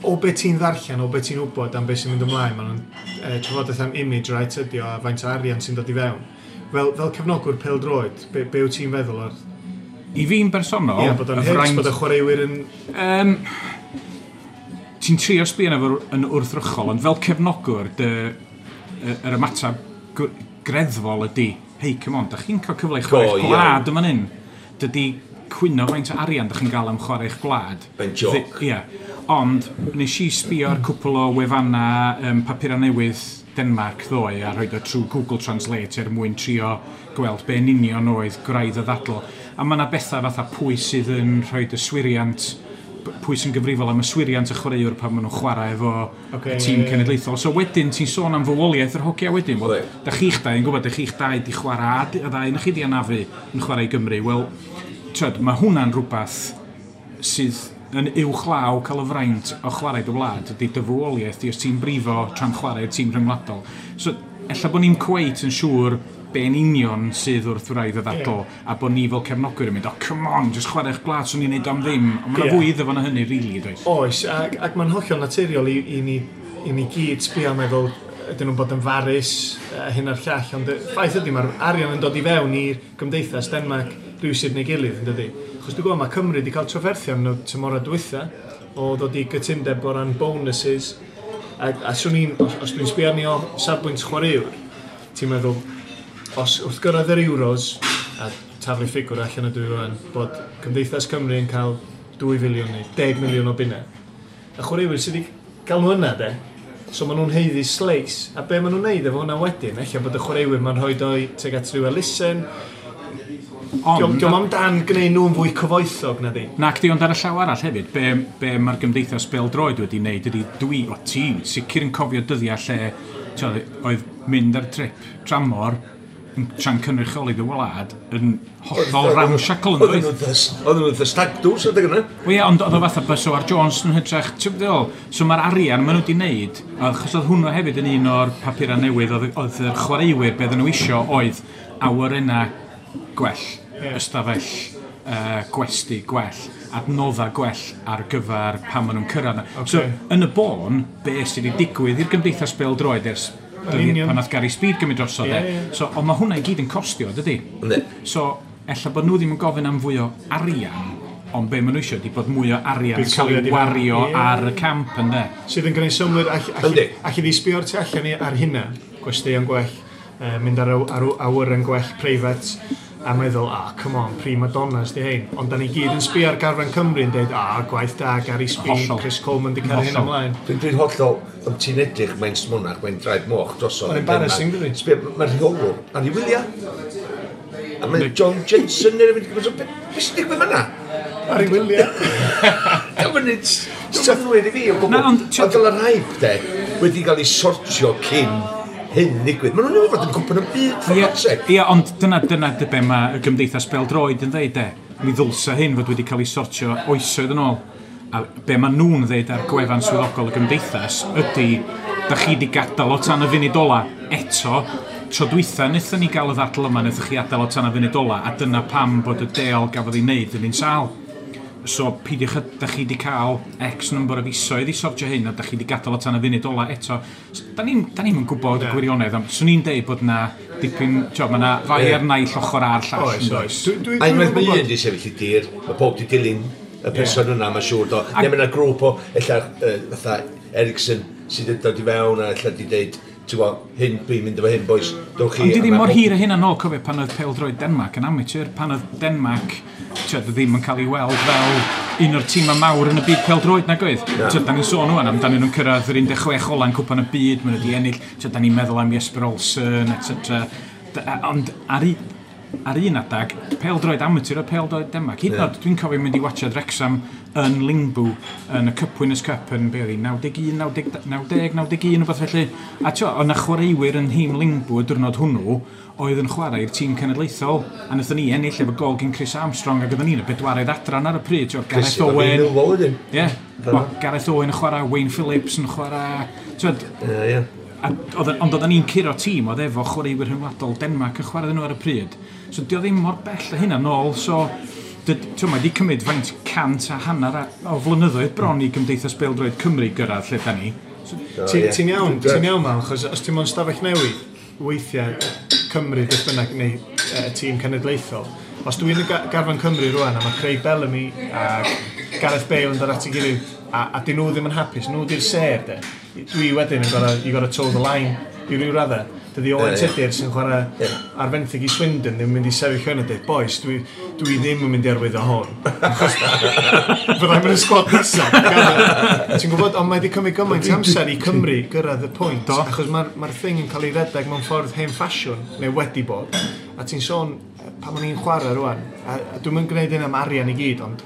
o be ti'n ddarllen, o be ti'n wybod am be sy'n mynd ymlaen, maen nhw'n trafodaeth am image right ydi o, a faint o arian sy'n dod i fewn. Fel cefnogwr pêl-droed, be wyt ti'n feddwl o'r... I fi'n bersonol... Ie, bod o'n hits, bod y chwaraewyr yn... Ti'n trio sbio arno fo yn wrthrychol, ond fel cefnogwr, yr ymateb greddfol ydy, hei, come on, da chi'n cael cyfle i chwarae eich gwlad yma hyn. Dydy cwyno faint o arian da chi'n gael am chwarae eich gwlad. Mae'n joc. Ie. Ond nes i sbio ar cwpl o wefannau papurau newydd Denmark ddoe a rhoi o trwy Google Translate er mwyn trio gweld be yn union oedd gwraidd y ddadl. A mae yna bethau fatha pwy sydd yn rhoi yswiriant, pwy sy'n gyfrifol am yswiriant y chwaraewr pan maen nhw'n chwarae efo y tîm cenedlaethol. So wedyn ti'n sôn am fywoliaeth yr hogia wedyn. Wel, da chi'ch dau yn gwybod, da chi'ch dau di chwarae, a ddau yn chi di anafu yn chwarae i Gymru. Wel, tyd, mae hwnna'n rhywbeth sydd yn uwchlaw cael y fraint o chwarae dy wlad, ydy dy fywoliaeth di os ti'n brifo tra'n chwarae'r tîm rhyngwladol. So, ella bod ni'n cweit yn siŵr be'n union sydd wrth wraidd y ddadl, a bod ni fel cefnogwyr yn mynd, "Oh, come on, just chwarae eich gwlad, swn i'n neud am ddim." Ond mae'n fwy iddo fo na hynny, really, does? Oes, ac mae'n hollol naturiol i ni gyd sbio a meddwl ydyn nhw'n bod yn farus, hyn a'r llall, ond y ffaith ydy mae'r arian yn dod i fewn i'r gymdeithas Denmark rhywsut neu gilydd, yn dydy? Achos dwi'n gwybod mae Cymru wedi cael trafferthion yn y tymorau dwytha o ddod i gytundeb o ran bonuses, a swn i'n, os dwi'n sbio arni o safbwynt chwaraewr, ti'n meddwl, os wrth gyrraedd yr Euros, a taflu ffigwr allan ydw i rwan, bod Cymdeithas Cymru yn cael 2 filiwn neu 10 miliwn o bunnau. Y chwaraewyr sydd wedi gael nhw yna, de, so maen nhw'n haeddu slice. A be maen nhw'n neud efo hwnna wedyn, ella bod y chwaraewyr ma'n rhoi o'i tuag at rhyw elusen. Ond, Diolch amdan gwneud nhw'n fwy cyfoethog na di. Nac di, ond ar y llaw arall hefyd, be mae'r gymdeithas bêl-droed wedi wneud ydy dwi, o ti, sicr yn cofio dyddiau lle t'od, oedd mynd ar trip tramor yn tra'n cynrychioli dy wlad yn hollol ramshackle, yn Oedden doedd? Nhw'n the stag do's adeg yna. Wel ie, ond oedd o fatha bus o ar Jones yn hytrach, ti'n gwbod? So mae'r arian maen nhw wedi wneud, achos oedd hwnnw hefyd yn un o'r papurau newydd, oedd yr chwaraewyr, be oedden nhw isio oedd awyrennau gwell, ystafell gwesty gwell, adnoddau gwell ar gyfer pan maen nhw'n cyrraedd yna. So, yn y bôn, be sydd wedi digwydd i'r Gymdeithas Bêl-droed ers Yn union. pan nath Gary Speed gymryd drosodd, Ie, e. ie. So, ond mae hwnna i gyd yn costio, dydy? Yndi. So, ella bod nhw ddim yn gofyn am fwy o arian, ond be maen nhw eisiau ydy bod mwy o arian yn cael Buddsoddiad ei i fewn. wario ar y camp, ynddo? Sydd yn gwneud synnwyr, Yndi. all i sbio o'r tu allan i ar hynna, gwesteion gwell, mynd ar awyren gwell preifat, a meddwl, "Ah, come on, prima donnas di hein." Ond da ni gyd yn sbio ar garfan Cymru yn dweud, "Ah, gwaith da, Gary Speed, Chris Coleman di cael hyn ymlaen." Dwi'n hollol, ond ti'n edrych, mae'n smonach, mae'n draed moch drosodd. Mae'n embarrassing, dydi? Sbio, mae'r rheolwr ar ei wyliau. A mae John Jensen neu rhywbeth, so, be sy'n digwydd fan'na? Ar ei wyliau. Diolch yn neud synnwyr i fi o gwbl. Na, ond Ond dyla'r hype, de, wedi cael ei sortio cyn hyn ddigwydd. Maen nhw'n newydd fod yn cwpan y byd, for God's sake. Ie, ond dyna dy be mae y Gymdeithas Bêl-droed yn dweud, de. Mi ddylsa hyn fod wedi cael ei sortio oesoedd yn ôl. A be maen nhw'n dweud ar gwefan swyddogol y Gymdeithas ydy, da chi di gadael o tan y funud ola eto. Tro dwytha, wnaethon ni gael y ddadl yma, wnaethoch chi adael o tan y funud ola, a dyna pam bod y deal gafodd ei wneud yn un sâl. So, peidiwch, da chi di cael X number o fisoedd i sortio hyn, a da chi di gadael o tan y funud ola eto. So, da ni'm yn gwybod y gwirionedd, ond swn i'n deud bod na dipyn, tio, mae na fai ar naill ochr a'r llall. Oes, yn does? oes. A Dwi'n unwaith mae gwybod. un di sefyll i dir, mae pob di dilyn y person yna, mae'n siŵr do. Neu mae yna grŵp o, ella, fatha Ericsson, sydd yn dod i fewn a ella di deud, ti'n gwybod, hyn, dwi'n mynd efo hyn, boys, dowch chi. Ond di A ddim ma' mor pob- hir a hynna nôl, cofio pan oedd pêl-droed Denmark yn amateur, pan oedd Denmark ti'od, ddim yn cael ei weld fel un o'r tîmau mawr yn y byd pêl-droed nag oedd. Ti'od, da ni'n sôn ŵan amdanyn nhw'n cyrraedd yr 16 ola'n cwpan y byd, maen nhw wedi ennill, ti'od, da ni'n meddwl am Jesper Olsen, etc. Ond ar un adag, pêl-droed amateur o pêl-droed Denmark. Hyd yn oed, dwi'n cofio mynd i watchad Wrexham yn Lyngby yn y Cup Winners' Cup yn, be oedd hi, 91, 90, 90, 91, rhywbeth felly. A tio, oedd 'na chwaraewyr yn nhîm Lyngby y diwrnod hwnnw oedd yn chwarae i'r tîm cenedlaethol. A wnaethon ni ennill efo gol gen Chris Armstrong ac oedden ni'n y bedwaredd adran ar y pryd. Tio, Gareth Chris, efo Owen. Millwall wedyn. Ie. Yeah. Gareth Owen yn chwarae, Wayne Phillips yn chwarae. Ti'od, Ie, ie. Ond oedden ni'n curo tîm oedd efo chwaraewyr rhyngwladol Denmark yn chwarae nhw ar y pryd. So di o ddim mor bell a hynna nôl, so ti'n mae di cymryd faint 150 o flynyddoedd bron i Gymdeithas Bêl-droed Cymru gyrraedd lle da ni. So, O, Ti'n ie. ti'n iawn, ti'n iawn, Mal, achos os ti'n mewn stafell newydd, weithiau Cymru, beth bynnag, neu tîm cenedlaethol, os dwi'n y garfan Cymru rwan, a mae Craig Bellamy a Gareth Bale yn dod at ei gilydd, a dyn nhw ddim yn hapus, nhw di'r sêr, de. Dwi wedyn yn gorau, you gotta toe the line i ryw raddau. Dydy Owen Tudur sy'n chwarae ar fenthyg i Swindon ddim yn mynd i sefyll yn a dweud, boys, dwi ddim yn mynd i arwyddo hwn. Achos fyddai'n mynd y sgwad nesaf. Ti'n gwybod, ond mae wedi cymryd gymaint amser i Cymru gyrraedd y pwynt. Achos mae'r thing yn cael ei redeg mewn ffordd hen ffasiwn, neu wedi bod. A ti'n sôn, pan o'n i'n chwarae rwan, a dwi'm yn gwneud hyn am arian i gyd, ond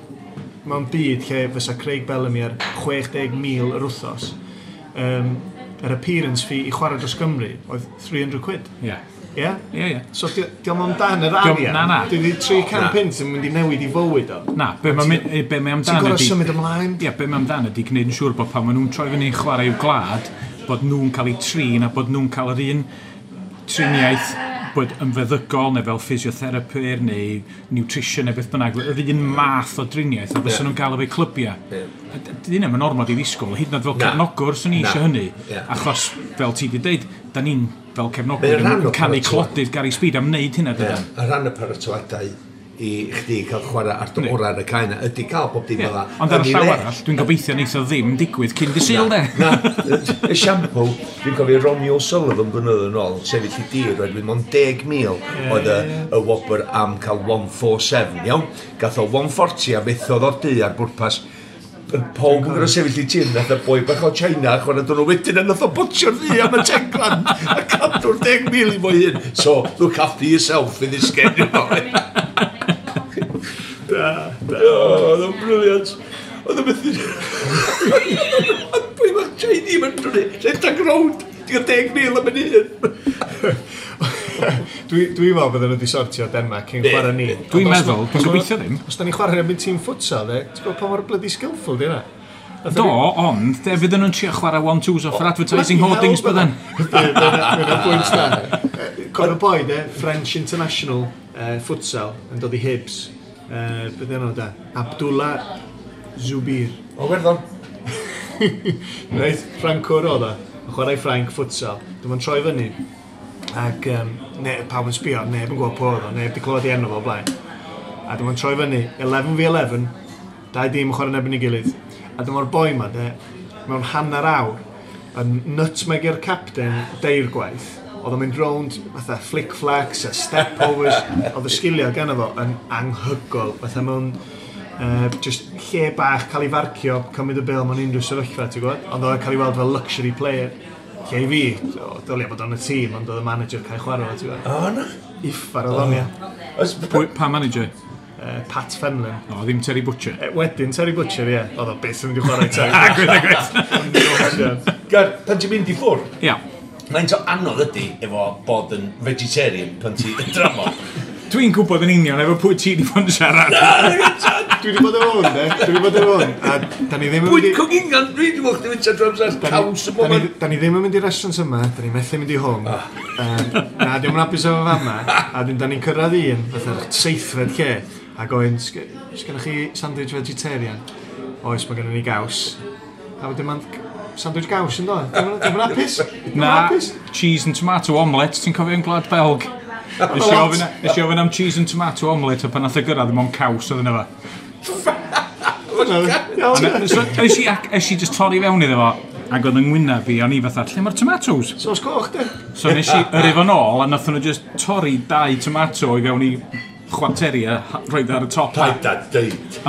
mewn byd lle fysa Craig Bellamy ar 60,000 yr wythnos, yr appearance fee i chwarae dros Gymru oedd 300 quid. Ie. Ie? Ie. So diolch amdan yr arian. Na, na. Dydy 300 punt yn mynd i newid i fywyd o. Na, be mae amdan Ti'n gorfod symud ymlaen. Ie, be mae amdan ydy gwneud yn siŵr bod pan maen nhw'n troi fyny i chwarae i'w gwlad, bod nhw'n cael eu trin a bod nhw'n cael yr un triniaeth bod yn feddygol neu fel physiotherapyr neu nutrition neu beth bynnag, yr un math o driniaeth a fysa nhw'n gael efo'u clybiau. Dyn nhw'n ormod i ddisgwyl, hyd yn oed fel cefnogwr swn i eisiau hynny, achos fel ti wedi dweud, da ni'n fel cefnogwyr yn canu clodydd Gary Speed am wneud hynna dydan. Y rhan y paratoadau i chdi cael chwarae ar dy orau ar y cae yna, ydy cael bob dim fel 'na. Ond ar y llaw arall, dwi'n gobeithio neith o ddim digwydd cyn dy Sul, de. Na, y siampw, dwi'n cofio Ronnie O'Sullivan blynyddoedd yn ôl, sefyll i dir, oherwydd mond 10,000 oedd y wobr am cael 147, iawn? Gath o 140 a fethodd o'r du ar bwrpas. Pawb yn gorfod sefyll i tir, nath y boi bach o China, chwarae dyn nhw wedyn, a nath o botio'r ddu am y 10 grand, a cadw'r 10,000 i fo hun. So, look after yourself in this game, you know. Da, da. Oedd o'n brilliant. Oedd o'n methu... Boi bach Chinese yn rhedeg rownd. Ti'n cael 10,000 am yn hun. Dwi'n meddwl bydden nhw wedi sortio Denmark cyn chwarae ni. Dwi'n meddwl, dwi'n gobeithio ddim. Os da ni'n chwarae erbyn tîm futsal, de, ti'n gwybod pa mor bloody skillful di hynna? Do, ond, de, fydden nhw'n trio chwarae one-twos off yr advertising hoardings bydden. Mae'n pwynt da. Cofio boi, de, French International futsal yn dod i Hibs. Beth enw da? Abdullah Zubir. O, Werddon. Reit, Ffrancwr oedd o. Yn chwarae Ffrainc futsal. Dyma'n troi fyny. Ac ne, pawb yn sbio, neb yn gwybod pwy oedd o, neb wedi clywed ei enw fo o blaen. A dyma'n troi fyny, 11v11, dau dîm yn chwarae yn erbyn ei gilydd. A dyma'r boi ma, de, mewn hanner awr, yn nutmeg-io'r captain deirgwaith. Oedd o'n mynd rownd fatha flick-flacks a step-overs. Oedd y sgiliau gan fo yn anhygoel. Fatha mewn just lle bach cael ei farcio, cymryd y bêl mewn unrhyw sefyllfa, ti'n gwybod? Ond oedd o'n cael ei weld fel luxury player. Lle i fi, dylia bod o'n y tîm, ond oedd y manager cael chwarae fo, ti'n gwybod? O, na. Uffar oedd o'n, ia. Pa manager? Pat Fenlon. O, ddim Terry Butcher. Wedyn Terry Butcher, ie. Oedd o byth yn mynd i chwarae Terry. Gwyth, Gar, pan ti'n mynd i ffwrdd? Ia. Faint o anodd ydy efo bod yn vegetarian pan ti yn dramor? Dwi'n gwybod yn union efo pwy ti wedi bod yn siarad. Dwi wedi bod efo hwn, de. Dwi wedi bod efo hwn. A da ni ddim yn mynd Bwyd i... cogingan, dwi wedi bod chdi fyta drwy amser caws y Da ni, bob. da ni ddim yn mynd i'r restaurant yma, da ni methu mynd i hwn. Na, diolch yn hapus efo fama. A dyn, da ni'n cyrraedd un, fatha'r seithfed lle, a gofyn, "Sgynnoch chi sandwich vegetarian?" Oes, mae gennym ni gaws. A wedyn ma'n sandwich gaws yn dod. Dwi'n yn hapus. Dwi'm yn Na, hapus. cheese and tomato omelette, ti'n cofio yn Gwlad Belg? Nes i ofyn am cheese and tomato omelette, a pan nath o gyrraedd, ddim ond caws oedd yna fo. Iawn, ie. So, es i just torri fewn iddo fo, ac oedd yng ngwyneb fi, o'n i fatha, lle mae'r tomatoes? Sos coch, de. So nes i yrru fo nôl, a nath nhw just torri dau tomato i fewn i chwarteri a rhoid ar y top. Paid a deud.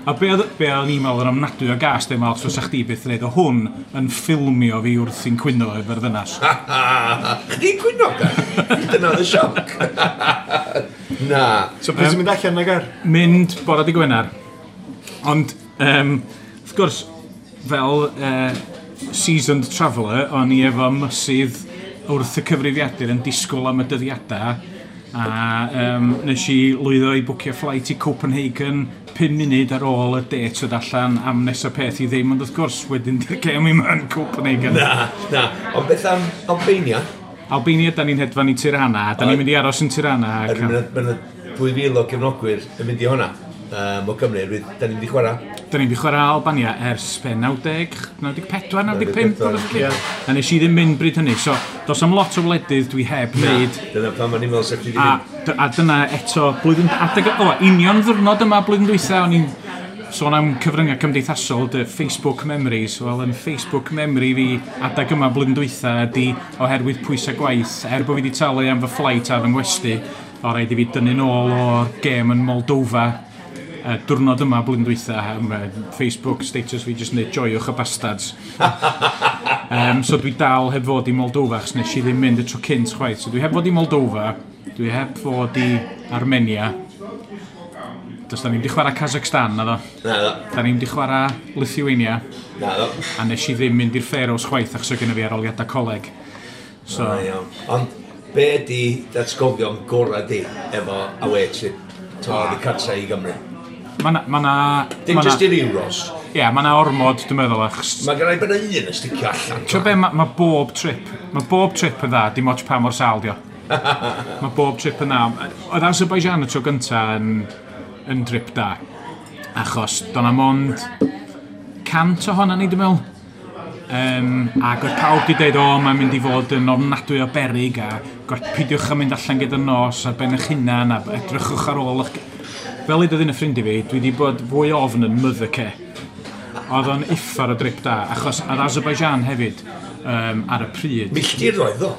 A be oedd ni'n meddwl yn ofnadwy o gas, dim os fysa chdi byth yn dweud, o hwn yn ffilmio fi wrth i'n cwyno efo'r ddynas. Chdi'n cwyno, gar? Dyna oedd y sioc. Na. So pryd ti'n mynd allan na gar? Mynd bore dy Gwener. Ond, wrth gwrs, fel seasoned traveller, o'n i efo mysydd wrth y cyfrifiadur yn disgwyl am y dyddiadau. A nes i lwyddo i bwcio flight i Copenhagen 5 munud ar ôl y date oedd allan am nesaf peth i ddim, ond wrth gwrs wedyn di'r gêm i'm yn Copenhagen. Na, na. Ond beth am Albania? Albania, da ni'n hedfan i Tirana, da ni'n mynd i aros yn Tirana. Mae yna 2,000 o gefnogwyr yn mynd i hwnna. O Gymru, da ni'n mynd i chwarae. Da ni'n mynd i chwarae Albania ers be, 90, 94, 95, 94, ie. A nes i ddim mynd bryd hynny, so dos am lot o wledydd dwi heb wneud. Dyna pam o'n i'n meddwl sef chdi A, di mynd. a dyna eto, blwyddyn, adeg, o, union ddwrnod yma blwyddyn dwytha, o'n i'n Sôn am cyfryngau cymdeithasol, dy Facebook memories, wel, yn Facebook memory fi adag yma blwyddyn dwytha ydy oherwydd pwysau gwaith, er bod fi wedi talu am fy flight a fy ngwesti, o rhaid i fi dynnu nôl o'r gêm yn Moldova diwrnod yma blwyddyn dwytha, am Facebook status fi jyst yn dweud "Joiwch y bastards." So dwi dal heb fod i Moldova, achos nes i ddim mynd y tro cynt chwaith. So dwi heb fod i Moldova, dwi heb fod i Armenia. Does da ni'n di chwarae Kazakhstan, na ddo. Na ddo. Da ni'n di chwarae Lithuania. Na ddo. A nes i ddim mynd i'r Faroes chwaith achos oedd genna fi arholiadau coleg. So, Na, iawn. Ond be di datgofion gorau di efo away trip to oddi cartra i Gymru? Mae na... Ma na Dim ma na- just i'r Euros. Ie, mae na ormod, dwi'n meddwl, achos Mae gen i bod un yn sticio allan. Ti'n be, mae bob trip yn dda, dim ots pa mor sâl dio. Mae bob trip yn dda. Oedd Azerbaijan y tro gynta yn drip da. Achos do'na mond 100 ohona ni, dwi'n meddwl. Ac oedd pawb di dweud, "O, mae'n mynd i fod yn ofnadwy o berig a peidiwch â mynd allan gyda nos ar ben eich hunan a edrychwch ar ôl eich." Fel i un y ffrind i fi, dwi wedi bod fwy ofn yn Mothercare. Oedd o'n uffar o drip da, achos ar Azerbaijan hefyd, ar y pryd. Milltiroedd o.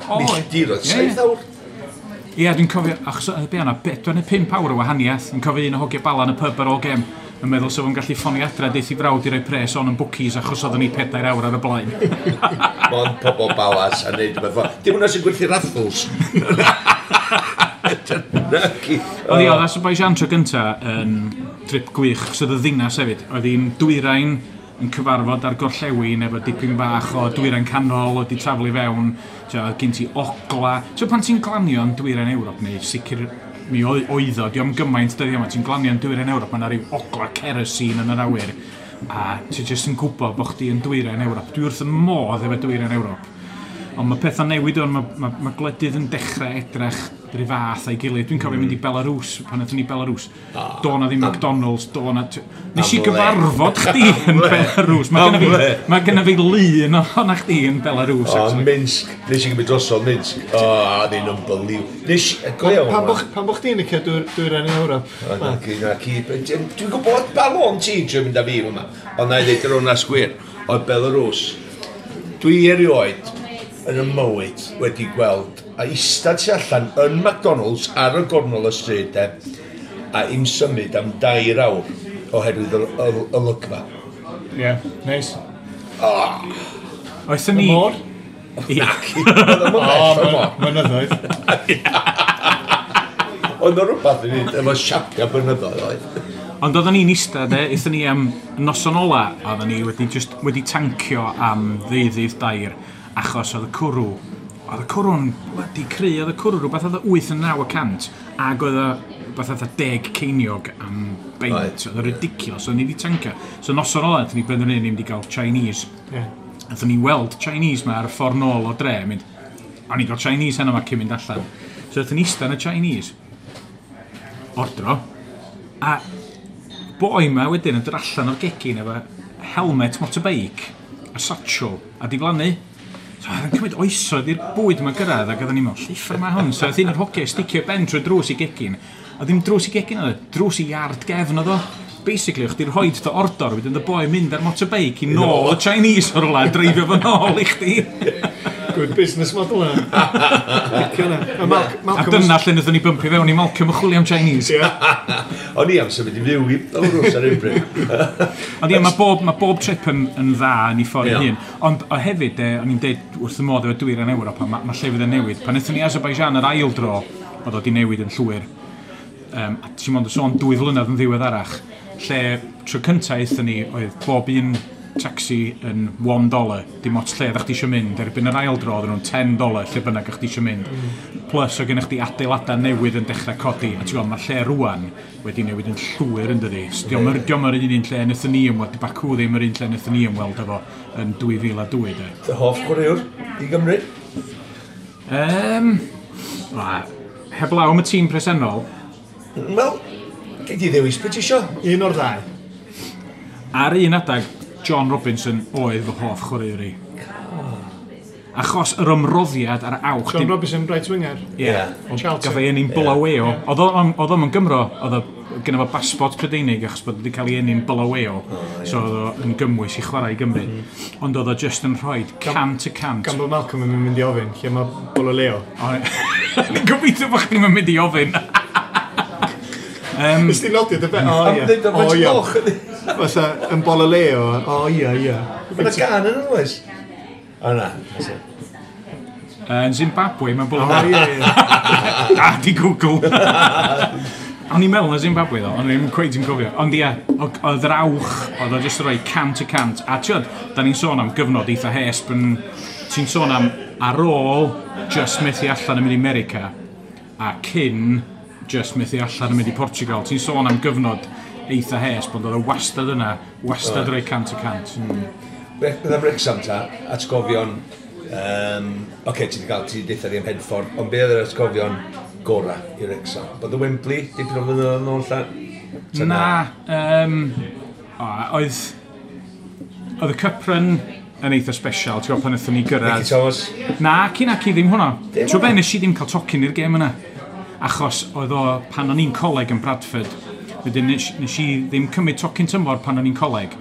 O, Milltiroedd. ie, ie. 7 awr. Ie, dwi'n cofio, achos oedd be yna, 4 neu 5 awr o wahaniaeth. Yn cofio un o hogia Bala yn y pub ar ôl gem, yn meddwl sef o'n gallu ffonio adra deith i frawd i roi pres on yn bookies achos oedden ni 4 awr ar y blaen. Mond pobl balas a neud rhywbeth fel. Dim hwnna sy'n gwerthu raffles. Naci. Oedd hi, oedd Azerbaijan tro gynta yn trip gwych, achos oedd y ddinas hefyd. Oedd hi'n dwyrain yn cyfarfod ar gorllewin efo dipyn bach o dwyrain canol oedd di taflu fewn. Tio, oedd gen ti ogla. Tio, pan ti'n glanio yn dwyrain Ewrop, neu sicr mi oedd o, diolch gymaint dyddiau yma, ti'n glanio yn dwyrain Ewrop, mae yna ryw ogla kerosene yn yr awyr. A ti jyst yn gwybod bod chdi yn dwyrain Ewrop. Dwi wrth y modd efo dwyrain Ewrop. Ond mae pethau'n newid o'n, mae gwledydd yn dechrau edrych rhyw fath a'i gilydd. Dwi'n cofio mynd i Belarus, pan aethon ni Belarus. Do na ddim McDonald's, do na. Nes i Am le. gyfarfod chdi yn Belarus. Am le. Mae genna fi lun ohona chdi yn Belarus, O, actually. Minsk. Nes i gymryd drosodd Minsk. O, oedd hi'n unbelievable. Nes i, go iawn. Pan bo chdi'n licio dwyrain Ewrop? O, na ci, na ci. Dwi'n gwybod ba lôn ti'n trio mynd â fi yma. Ond na i ddeud yr hwnna sgwir. Oedd Belarus. Dwi erioed yn y mywyd wedi gweld a eistedd tu allan yn McDonald's ar y gornel y stryd de, a im symud am 2 awr oherwydd y olygfa. Ie, yeah, neis. Oethon ni Y môr? Ie. Oedd o'n bell o'r môr. Mynyddoedd. Oedd o'n rhywbeth i wneud efo siapia bynyddoedd oedd. Ond oedden ni'n eistedd, de, aethon ni am noson ola, oedden ni wedi, just, wedi tancio am ddeuddydd dair, achos oedd y cwrw'n bloody cry, oedd y cwrw rhywbeth oedd 8 yn 9%, ac oedd o rhywbeth oedd 10 ceiniog am beint, oedd o ridiculous, oedd ni wedi tancio. So noson ola, aethon ni benderfynu ni mynd i gael Chinese. Aethon ni weld Chinese ma ar y ffordd nôl o dre, mynd, o'n i gael Chinese heno ma cyn mynd allan. So aethon ni eistedd yn y Chinese, ordro, a boi ma wedyn yn dod allan o'r gegin efo helmet motorbike a satchel a diflannu. So oedd yn cymryd oesoedd i'r bwyd yma gyrraedd ac oedden ni'n meddwl, "Lliffr ma hwn?" So oedd un o'r hogiau sticio ben trwy drws i gegin. A ddim drws i gegin oedd o, drws i iard gefn oedd o. Basically, o'ch chdi'n rhoi dy ordor, wedyn dy boi mynd ar motorbike i nôl y Chinese o'r rwla a dreifio fo nôl i chdi. Good business model yna. Licio hwnna. A A Malcolm dyna lle wnaethon ni bympio fewn i Malcolm y chwilio am Chinese. Ie. O'n i am symud i fyw i Belarus ar un bryd. Ond ie, mae bob trip yn dda yn ei ffordd ei Ie. hun. Ond o hefyd, o'n i'n deud wrth y modd efo dwyrain Ewrop, a mae llefydd yn newid. Pan aethon ni Azerbaijan yr ail dro, oedd o di newid yn llwyr. A ti'n mond yn sôn 2 flynedd yn ddiweddarach, lle tro cyntaf aethon ni, oedd bob un taxi yn $1, dim ots lle ddech chdi eisiau mynd. Erbyn yr ail dro, oedden nhw'n $10 lle bynnag ych chdi eisiau mynd. Plus, oedd gennych chdi adeiladau newydd yn dechrau codi. A ti'n gweld, mae'r lle rwan wedi newid yn llwyr yn dydi. So, Dio'm yr dio'm yr un un lle wnaethon ni ymweld, di Baku ddim yr un lle wnaethon ni ymweld efo yn 2002, de. Dy hoff chwaraewr i Gymru? Heblaw am y tîm presennol, Wel, gei di ddewis beth ti isio. Un o'r ddau. Ar un adag, John Robinson oedd fy hoff chwaraewr i. Achos yr ymroddiad a'r awch. John Robinson, right winger. Ie. Ie. Ond Charlton. Gath ei eni'n Bulawayo. Oedd o'n Gymro, oedd o Gyda fo basbort Prydeinig achos bod wedi cael ei eni'n Bulawayo. So oedd o yn gymwys i chwarae i Gymru. Ond oedd o just yn rhoi 100%. Gan bod Malcolm yn mynd i ofyn, lle mae Bulawayo? Ni'n gobeithio bod chdi'n mynd i ofyn. Nes ti nodio dy be? O, ie. O, ie. Fatha, yn Bulawayo. O, ie, ie. Mae'n gan yn oes? O, na. Yn Zimbabwe, mae'n Bulawayo. O, ie, ie. Da, di Google. O'n i'n meddwl na Zimbabwe ddo, o'n i'n cweit yn cofio. Ond ie, oedd yr awch, oedd o jyst yn rhoi 100%. A tiod, da ni'n sôn am gyfnod eitha hesp yn... Ti'n sôn am ar ôl just methu allan yn mynd i America a cyn just methu allan yn mynd i Portugal. Ti'n sôn am gyfnod eitha hesp, ond oedd o wastad yna, wastad rhoi 100%. Beth am Wrexham ta, atgofion... Oce, ti wedi cael, ti wedi deutha ni am Henffordd, ond be oedd yr atgofion gora i Wrexham? Bod y Wembley, dipyn o flynyddoedd yn ôl lla? Na, oedd y Cup Run yn eitha special, ti'n gwybod pan wnaethon ni gyrraedd. Nicky Thomas? Na, cyn ac i ddim hwnna. Ti'n gwybod be, nes i ddim cael tocyn i'r gêm yna. Achos oedd o pan o'n i'n coleg yn Bradford. Wedyn nes i ddim cymryd tocyn tymor pan o'n i'n coleg.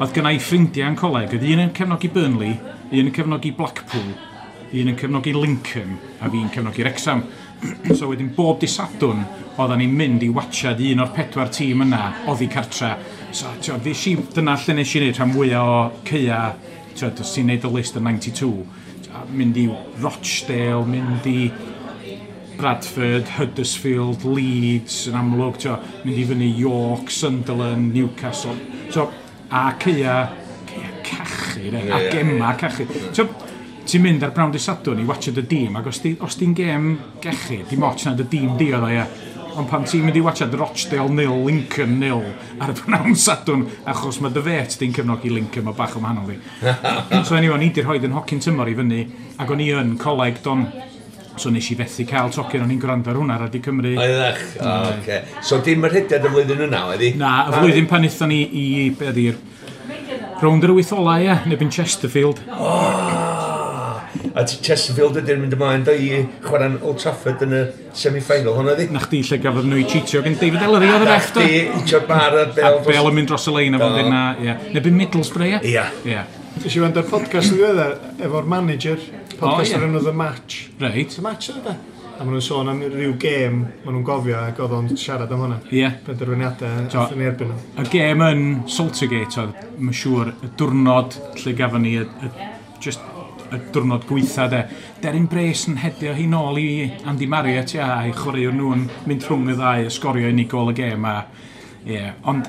Oedd gynna i ffrindiau yn coleg, oedd un yn cefnogi Burnley, un yn cefnogi Blackpool, un yn cefnogi Lincoln, a fi'n cefnogi Wrexham. So wedyn bob dydd Sadwrn, oedden ni'n mynd i watchad un o'r 4 tîm yna, oddi cartra. So, dyna lle nes i wneud rhan fwyaf o ceia, ti'n os ti'n neud y list yn 92, mynd i Rochdale, mynd i Bradford, Huddersfield, Leeds yn amlwg, mynd i fyny York, Sunderland, Newcastle. So, a ceia cachu, a gema cachu. Ti'n mynd ar Brown dydd Sadwrn i watchad y dîm, ac os di'n gêm gechu, dim ots na dy dîm di oedd o, ie. Ond pan ti'n mynd i watchad Rochdale 0, Lincoln 0 ar y Brown Sadwrn, achos mae dy fet di'n cefnogi Lincoln, mae bach o wahanol di. So anyway, o'n i di rhoid yn hocyn tymor i fyny, ac o'n i yn coleg don, so nes i fethu cael tocyn, o'n i'n gwrando ar hwnna Radio Cymru. Oeddech, oce. So dim yr rhediad y flwyddyn yna, oedd hi? Na, y flwyddyn pan aethon ni i, be ydi'r, rownd yr 8 ola, ie, neu bin Chesterfield. A Chesterfield ydy'n mynd ymlaen do i chwarae'n Old Trafford yn y semi-final hwnna di? Na chdi lle gafodd nhw i cheatio gen David Ellery oedd y ref do? Na chdi, hitio'r bar a'r bel. A bel yn mynd dros y lein a fo'n dweud na, ie. Neu bin Middlesbrough, ie? Ie. Nes i wrando ar podcast yn ddiweddar efo'r manager, podcast o'r enw The Match. Reit. The Match oedd e. A maen nhw'n sôn am ryw gêm, maen nhw'n gofio ac oedd o'n siarad am hwnna. Ie. Penderfyniadau athyn ni erbyn nhw. Y gêm yn Saltergate oedd, mae'n siŵr, y diwrnod lle gafon ni, just y diwrnod gweitha de. Deryn Brace yn hedio hi nôl i Andy Marriott, ia, a'i chwaraewr nhw'n mynd rhwng y ddau, a sgorio unig gôl y gêm a... Ie, ond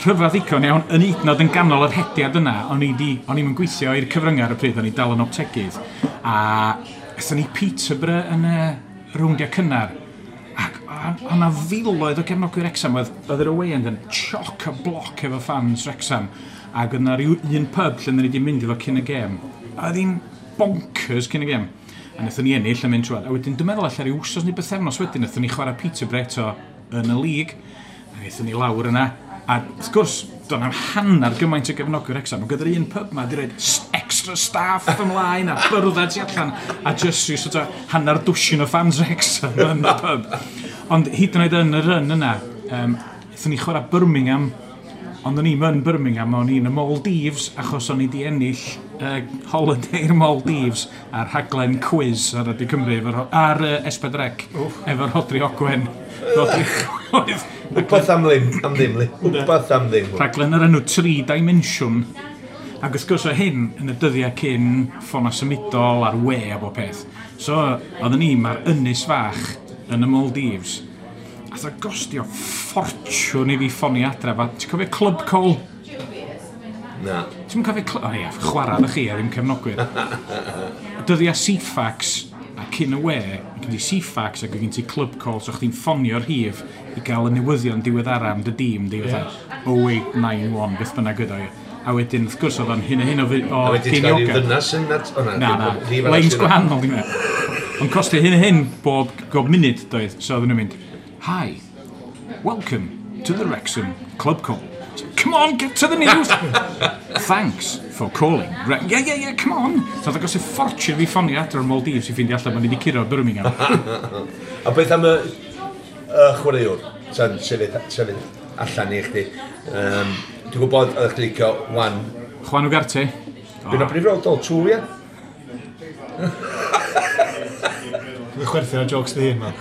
rhyfedd ddigon iawn, yn hyd yn oed yn ganol yr hediad yna, o'n i'n gweithio i'r cyfryngau ar y pryd, o'n i dal yn optegydd, a aethon ni Peterborough yn y rowndiau cynnar, ac o'na filoedd o gefnogwyr Wrexham, oedd yr away end yn choc a bloc efo fans Wrexham, ac oedd 'na ryw un pub lle ni wedi mynd efo cyn y gêm, a oedd hi'n bonkers cyn y gêm. A wnaethon ni ennill a mynd trwad. A wedyn, dwi'n meddwl allan rhyw wsos neu bythefnos wedyn, wnaethon ni chwarae Peterborough eto yn y lig. A wnaethon ni lawr yna. A wrth gwrs, doedd na'm hanner gymaint o gefnogwyr Wrexham. Ond gyda'r un pub ma, di roid extra staff ymlaen a byrddau tu allan. A just rhyw sort of hanner dwsin o fans Wrexham yn y pub. Ond hyd yn oed yn y run yna, wnaethon ni chwarae Birmingham. Ond o'n i'm yn Birmingham, o'n i'n y Maldives, achos o'n i di ennill holiday'r Maldives a'r rhaglen quiz ar Radio Cymru, ar S4C, efo'r Rhodri Ogwen. Wbath am ddim, li. Wbath am ddim. Rhaglen yr enw 3 Dimension. Ac wrth gwrs o hyn yn y dyddiau cyn ffona symudol a'r we a bob peth. So, oedden ni mae'r ynys fach yn y Maldives. Ath o gostio ffortiwn i fi ffonio adre. Ti'n cofio Club Call? Na. Ti'n cofio Club... O ie, chwarae ddech chi a ddim cefnogwyr. Dyddiau Ceefax a cyn y we, gen ti Ceefax ac gen ti Club Call, so chdi'n ffonio'r rhif i gael y newyddion diweddara am dy dîm diweddar. 0891, beth bynnag ydw i. A wedyn, wrth gwrs, oedd o'n hyn a hyn o A wedyn ti'n cael rhyw ddynas yn... Na, lines gwahanol, dwi'n meddwl. Ond costio hyn a hyn bob munud, doedd. So oedden nhw'n mynd, "Hi, welcome to the Wrexham Club Call. Come on, get to the news. Thanks for calling. Yeah, come on." So oedd agos y ffortiwn fi ffonio adre'r Maldives i ffeindio allan bod ni wedi curo Birmingham. A beth am y chwaraewr? Sa'n sefyll allan i chdi. Dwi'n gwybod oeddech chdi licio Juan. Juan Ugarte. Dwi'n o brif roedd o, ie? Dwi'n chwerthin ar jokes dy hun, man.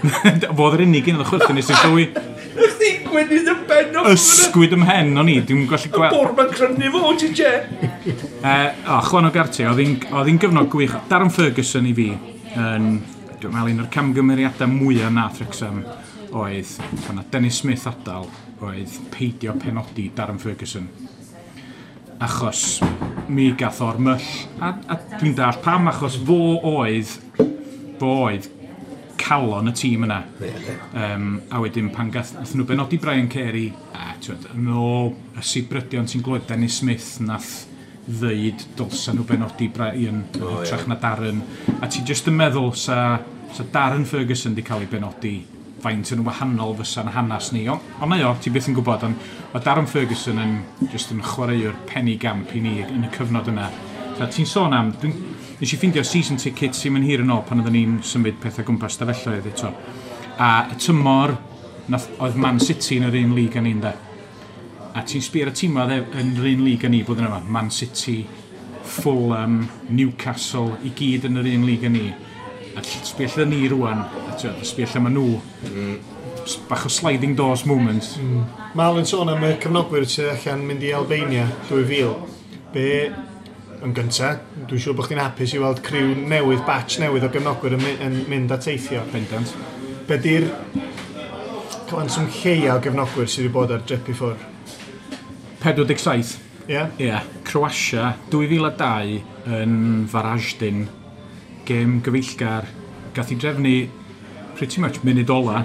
Fodd yr unig un oedd y chwerthin nes i'n sylwi. Chdi gwynydd y ben off. Ysgwyd ym mhen o'n i, dwi'n gallu gweld. Y bwr ma'n crynu fo, ti je. O, Juan Ugarte, oedd hi'n gyfnod gwych. Darren Ferguson i fi, yn, dwi'n meddwl, un o'r camgymeriadau mwyaf nath Wrexham oedd, pan na Dennis Smith adael, oedd peidio penodi Darren Ferguson. Achos mi gath o'r myll, a dwi'n dallt pam, achos fo oedd calon y tîm yna. A wedyn pan gath nhw benodi Brian Carey, a twyd, yn ôl y sibrydion ti'n glywed, Dennis Smith nath ddeud dylsa nhw benodi Brian yn hytrach na Darren. A ti jyst yn meddwl sa Darren Ferguson di cael ei benodi, faint yn wahanol fysa'n hanas ni. Ond mae o, ti byth yn gwybod, ond mae Darren Ferguson yn just yn chwaraewr penigamp i ni yn y cyfnod yna. So, ti'n sôn am, nes i ffindio season tickets sy'n mynd hir yn ôl pan oedden ni'n symud pethau gwmpas stafelloedd eto. A y tymor, nath, oedd Man City yn yr un lig â ni'n de. A ti'n sbio ar y tîm yn yr un lig â ni blwyddyn yma. Man City, Fulham, Newcastle, i gyd yn yr un lig â ni. A sbio lle ni rwan, a ti'n sbio lle maen nhw. Bach o sliding doors moment. Mal yn sôn am y cefnogwyr sydd allan mynd i Albania 2000. Be, yn gynta, dwi'n siŵr bod chdi'n hapus i weld criw newydd, batch newydd o gefnogwyr yn mynd a teithio. Bendant. Be di'r cyfanswm lleia o gefnogwyr sydd wedi bod ar drip i ffwrdd? 47. Ie? Yeah? Ie, yeah. Croatia, 2002 yn Varaždin, gêm gyfeillgar, gath i drefnu pretty much munud ola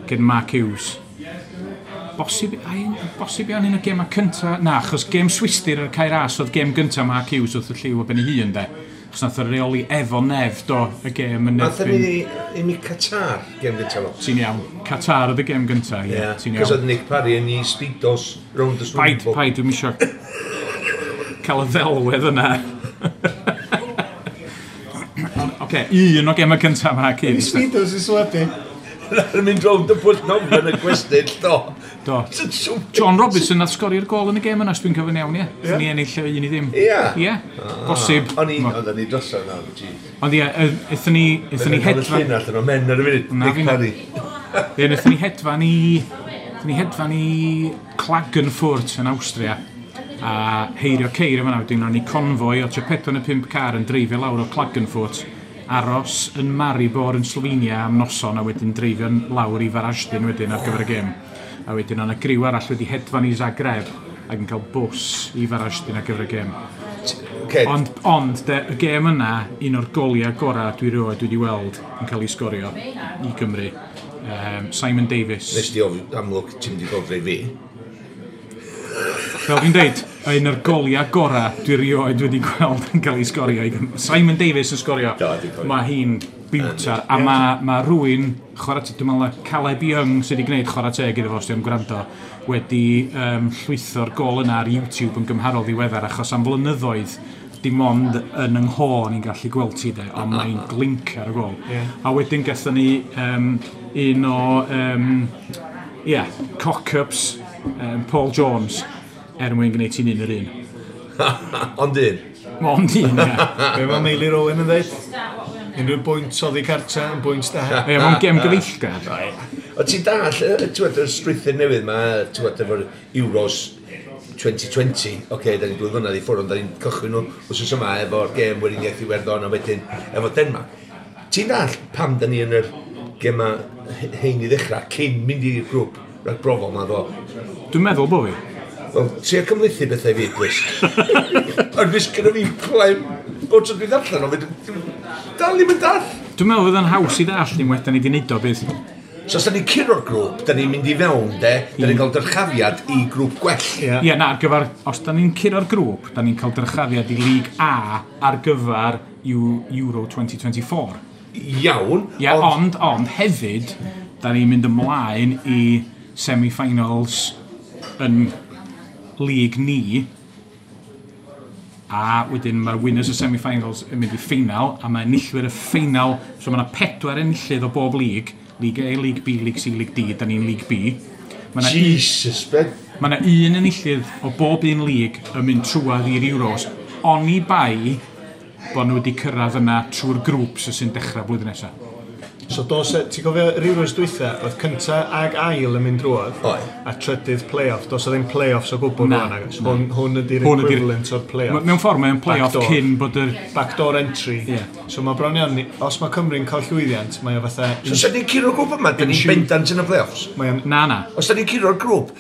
gen Mark Hughes. Bosib, ai, bosib iawn un o gemau cynta, na, achos gêm Swistir ar Cae Ras oedd gêm gynta Mark Hughes wrth y llyw o ben ei hun, de. Achos nath o reoli efo Nef, do, y gêm yn Nath erbyn. ni i mi Qatar, gêm gyntaf fo. Ti'n iawn. Qatar oedd y gêm gynta, ie, ti'n Cos iawn. oedd Nick Parry yn ei speedos round the swimming Paid, pool. paid, dwi'n isio cael y ddelwedd yna. Oce, un o gemau cyntaf Mark Hughes. Speedos i swebu. Yn mynd rownd y pwll nofio yn y gwestyll, do. Do. John Robinson nath sgorio'r gol yn y gêm yna, os dwi'n cofio'n iawn, ie. Ie. Ni ennill 1-0. Ie. Ie, bosib. O'n i, oedden ni drosodd na, jeez. Ond ie, aethon ni hedfan. Llun allan o men ar y funud, Na, Nick Parry. Ie, wnaethon ni hedfan i Klagenfurt yn Awstria a heirio ceir yma, wedyn o'n ni convoy o tua 4 neu 5 car yn dreifio lawr o Klagenfurt, aros yn Maribor yn Slovenia am noson a wedyn dreifio lawr i Varaždin wedyn ar gyfer y gêm. A wedyn o'na griw arall wedi hedfan i Zagreb ac yn cael bws i Varaždin ar gyfer y gêm. Okay. Ond de, y gêm yna, un o'r goliau gorau dwi rioed wedi weld yn cael ei sgorio i Gymru. Simon Davies. Nes di ofyn, amlwg, ti'n mynd i gofri fi. Fel dwi'n deud, un o'r goliau gorau dwi rioed wedi gweld yn cael ei sgorio i Gymru. Simon Davies yn sgorio. Do, dwi'n cofio. Mae hi'n biwtar, a mae rhywun, chwarae teg, dwi'n meddwl na Caleb Young sydd wedi gwneud chwarae teg iddo fo, os ti'n gwrando, wedi llwytho'r gol yna ar YouTube yn gymharol ddiweddar, achos am flynyddoedd dim ond yn yng ngho ni'n gallu gweld ti de, ond mae'n glinc ar y gol. A wedyn gathon ni un o yeah, cock-ups Paul Jones er mwyn gwneud ti'n 1-1. Ond un. Ond un, ie. Be mae Meilir Owen yn dweud? Unrhyw bwynt oddi cartra yn bwynt da. Ie, mae'n gêm gyfeillgar. O ti'n dall, ti'n gwbod, y strwythur newydd ma, ti'n gwbod, efo'r Euros 2020, oce, okay, da ni'n 2 flynedd i ffwrdd, ond da ni'n cychwyn nhw wsos yma efo'r gêm Weriniaeth Iwerddon a wedyn efo Denmark. Ti'n dall pam da ni yn yr gema hein i ddechrau cyn mynd i'r grŵp ragbrofol ma ddo? Dwi'n meddwl bo fi. Wel, trio cymhlethu bethau i fi, please. Ond fes gyda fi clem bod tro dwi'n ddarllen o, fe dal ddim yn dall. Dwi'n meddwl fydd yn haws i ddall unwaith da ni wedi neud o bydd. So os da ni'n curo'r grŵp, da ni'n mynd i fewn, de, da ni'n cael dyrchafiad i grŵp gwell. Ie. Ie, na, ar gyfer, os da ni'n curo'r grŵp, da ni'n cael dyrchafiad i League A ar gyfer Euro 2024. Iawn, Ie, ond hefyd, da ni'n mynd ymlaen i semi-finals yn league ni, a wedyn mae'r winners y semi-finals yn mynd i ffeinal, a mae enillwyr y ffeinal, so mae yna pedwar enillydd o bob league, League A, League B, League C, League D, da ni'n League B. Mae 'na Jesus, Ben. Mae yna un enillydd o bob un lig yn mynd trwadd i'r Euros, oni bai bod nhw wedi cyrraedd yna trwy'r grŵps sy'n dechrau blwyddyn nesaf. So dos, ti'n cofio yr Euros dwytha, oedd cynta ag ail yn mynd drwodd, Oedd. a trydydd play-off. Dos o ddim play-offs o gwbl Na, rwan, agos. Hwn ydy'r Hwn ydi'r- equivalent o'r play-off. Mewn ffordd, mae'n play-off Backdoor. cyn bod yr... Backdoor entry. Ie. So mae bron iawn, os mae Cymru'n cael llwyddiant, mae o fatha... So, os ni'n curo'r grŵp yma, da ni'n bendant yn y play-offs. Mae o'n Na, na. Os da ni'n curo'r grŵp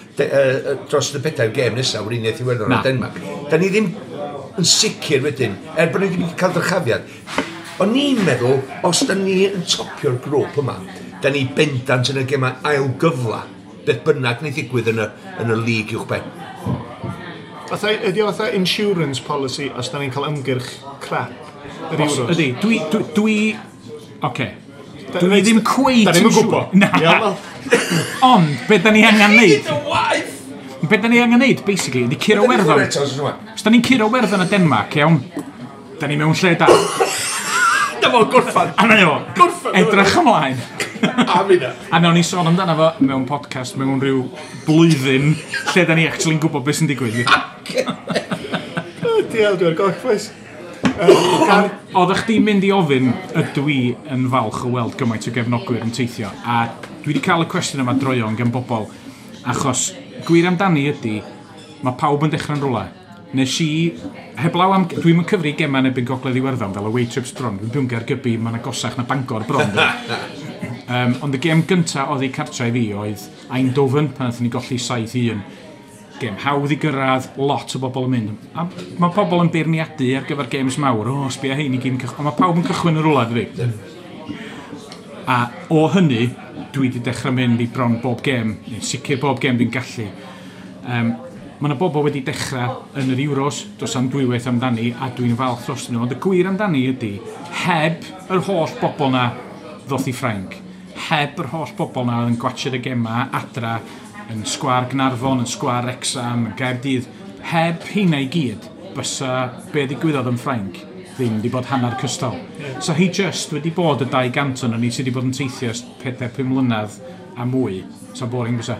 dros y pedair gêm nesaf, Weriniaeth Iwerddon Na. a Denmark, da ni ddim yn sicr wedyn, er bod ni ddim wedi cael dyrchafiad. O'n i'n meddwl, os da ni yn topio'r grŵp yma, da ni bendant yn y gemau ail gyfla, beth bynnag wneud ddigwydd yn y lig uwch ben. Fatha, ydy o fatha insurance policy os da ni'n cael ymgyrch crap yr Os, Euros? ydy, dwi. Oce. Dwi ddim cweit Da ni'm yn yn siŵr. gwybod. Na. Iawn, wel. Ond, be da ni angen neud? Waith! Be da ni angen neud, basically, ydy curo Werddon. Eto, os yma. Os da ni'n curo Werddon a Denmark, iawn, da ni mewn lle da. Dyma fo'n gorffan. A na o, Gorffan, edrych ymlaen. A minna. A nawn ni sôn amdano fo mewn podcast mewn rhyw blwyddyn lle da ni actually'n gwybod beth sy'n digwydd. O, Diawl, dwi'n goll, boys. Oeddech chdi'n mynd i ofyn ydw i yn falch o weld gymaint o gefnogwyr yn teithio, a dwi wedi cael y cwestiwn yma droeon gan bobl, achos gwir amdani ydy, mae pawb yn dechrau'n rhywle. Nes i, heblaw am, dwi'n yn cyfri gemau yn erbyn Gogledd Iwerddon fel away trips bron, dwi'n byw'n Gaergybi, mae'n agosach na Bangor bron. Ond y gêm gynta oedd ei cartre i fi oedd Eindhoven, pan nathon ni golli 7-1. Gêm hawdd i gyrraedd, lot o bobl yn mynd. A mae pobl yn beirniadu ar gyfer games mawr, o, sbia hein i gyd yn cychwyn. Ond mae pawb yn cychwyn yn rhywle, dydi? A o hynny, dwi wedi dechrau mynd i bron bob gêm, neu'n sicr bob gêm dwi'n gallu. Mae yna bobl wedi dechrau yn yr Euros, dos am dwywaith amdani, a dwi'n falch dros nhw. Ond y gwir amdani ydy, heb yr holl bobl na ddoth i Ffrainc, heb yr holl bobl na oedd yn gwatsio'r y gema adra, yn sgwar Gnarfon, yn sgwar Wrexham, yn Gaerdydd, heb heina i gyd, bysa be ddigwyddodd yn Ffrainc ddim wedi bod hanner cystal. So hi just wedi bod y 200 o'n ni sydd wedi bod yn teithio ers 4-5 mlynedd a mwy. So boring bysa.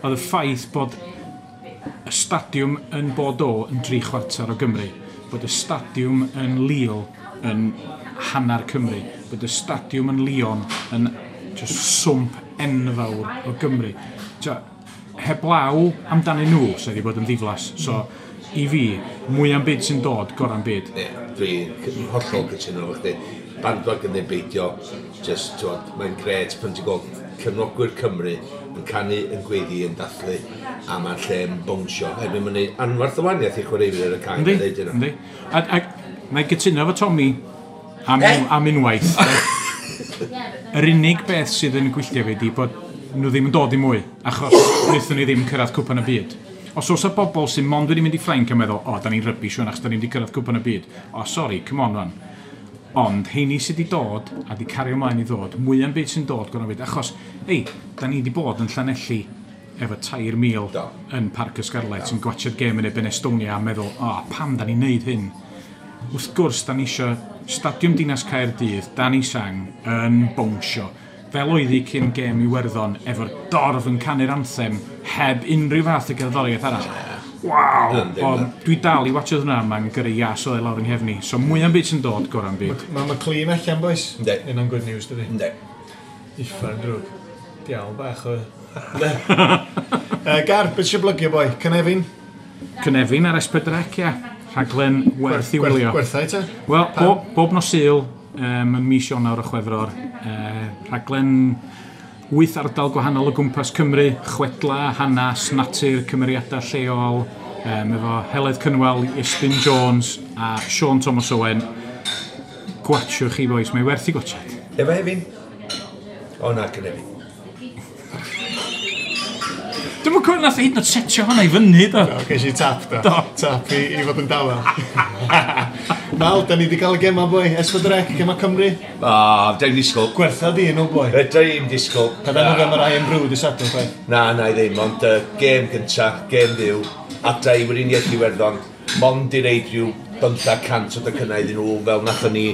Oedd y ffaith bod y stadiwm yn Bordeaux yn 3/4 o Gymru, bod y stadiwm yn Lille yn hanner Cymru, bod y stadiwm yn Lyon yn just swmp enfawr o Gymru. Tio, heblaw amdanyn nhw, so wedi bod yn ddiflas. So, i fi, mwy am byd sy'n dod, gorau'n byd. Ie, dwi'n hollol cytuno efo chdi. Bandwagon neu beidio, just, t'wod, mae'n gret pan ti'n gweld cefnogwyr Cymru yn canu, yn gweiddi, yn dathlu, a mae'r lle yn bownsio. Erbyn mae'n neud anfarth o wahaniaeth i chwaraewyr ar y cae. Yndi, yn deud hynna. yndi. A na i gytuno efo Tommy am, Eh? am unwaith. Yr unig beth sydd yn gwylltio fi ydi bod nhw ddim yn dod i mwy, achos wnaethon ni ddim cyrraedd cwpan y byd. Os oes y bobl sy'n mond wedi mynd i Ffrainc yn meddwl, o, da ni'n rubbish rwan, achos da ni'n wedi cyrraedd cwpan y byd. O, sori, come on rwan. Ond, heini sydd wedi dod, a wedi cario ymlaen i ddod, mwy am byd sy'n dod, gorau byd. Achos, ei, da ni wedi bod yn Llanelli efo 3,000 Do. yn Parc y Scarlets yn gwatsio'r gêm yn erbyn Estonia a meddwl, o, pam da ni'n neud hyn? Wrth gwrs, da ni eisiau Stadiwm Dinas Caerdydd, Danny Sang, yn bownsio. Fel oedd hi cyn gêm Iwerddon, efo'r dorf yn canu'r anthem, heb unrhyw fath o gerddoriaeth arall. Waw! Yndi, O, yndi. dwi dal i watcho hwnna, mae'n gyrru ias o lawr yng nghefni. So mwy am byd sy'n dod, gorau'n byd. Mae McLean allan, boys. Yndi. Yna'n good news, dydi? Yndi. Uffern drwg. Diawl bach o... Gar, beth sy'n blygio, boi? Cynefin? Cynefin ar S4C, ia. Rhaglen werth i wylio. Gwerthau, te? Wel, bob nos Sul, yn mis Ionawr a Chwefror, rhaglen 8 ardal gwahanol o gwmpas Cymru, chwedla, hanas, natur, cymeriadau lleol, efo Heledd Cynwal, Iestyn Jones a Sean Thomas Owen. Gwatshwch chi, boys, mae werth i gwatshad. Efo Hefin? O na, Cynefin. Dwi'm yn cofio nath hyd yn oed setio hwnna i fyny, do. O, ges i tap, do. Do. Tap i fod yn dawel. Mal, da ni wedi cael y gema, boi. S4C, gema Cymru. O, dwi'n disgwyl. Gwertha di nhw, boi. Fedra i'm disgwyl. Pa dan nhw'n am yr Irn-Bru dy Sadwrn, chwaith. Na, na i ddim, ond gêm gynta, gêm fyw, adra i Weriniaeth Iwerddon, mond i reid rhyw 500 o docynnau iddyn nhw, fel nathon ni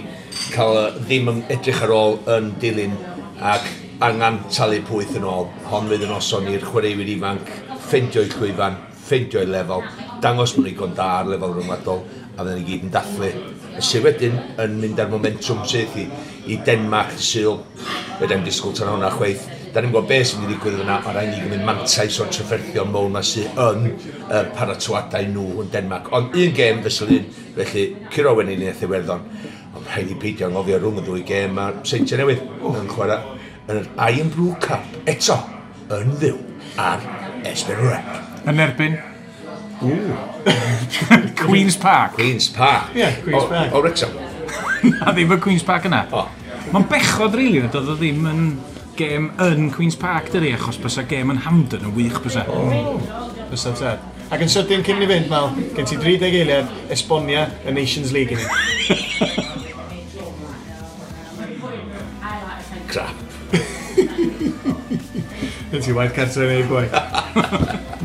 cael ddim yn edrych ar ôl yn dilyn, ac angen talu pwyth yn ôl. Hon fydd yn noson i'r chwaraewyr ifanc, ffeindio'u llwyfan, ffeindio'u lefel, dangos mwyn igon da ar lefel rhyngwladol, a fydden ni gyd yn dathlu. Y sydd wedyn yn mynd ar momentum syth i Denmark dydd Sul. Fedra i'm disgwyl tan hwnna chweith. Da ni'n gwybod beth sy'n mynd i ddigwydd yna, ond rhaid ni gymryd mantais o'r trafferthion mowr ma sydd yn paratoadau nhw yn Denmark. Ond un gêm fesul un, felly curo Weriniaeth Iwerddon. Ond rhaid i peidio anghofio rhwng y ddwy gêm mae'r Seintiau Newydd yn chwarae yn yr Irn-Bru Cup eto yn fyw ar S4C. Yn erbyn? Queen's Park. Queen's Park. Ie, Queen's Park. O Wrexham. Na ddim y Queen's Park yna. O. Mae'n bechod, rili, really, doedd o ddim yn gêm yn Queen's Park, dydi, achos bysa gêm yn Hampden yn wych bysa. Bysa tad. Ac yn sydyn cyn i fynd, Mal, gen ti 30 eiliad esbonia y Nations League i ni. Crap. Gen ti waith cartre i wneud, boi.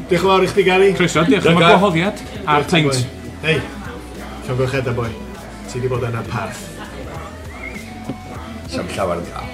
Diolch yn fawr i chdi, Gary. Croeso, diolch am y gwahoddiad a'r peint. Hei, llongyfarchiadau, boi. Ti di bod yn y parth. Sam llawer yn cael.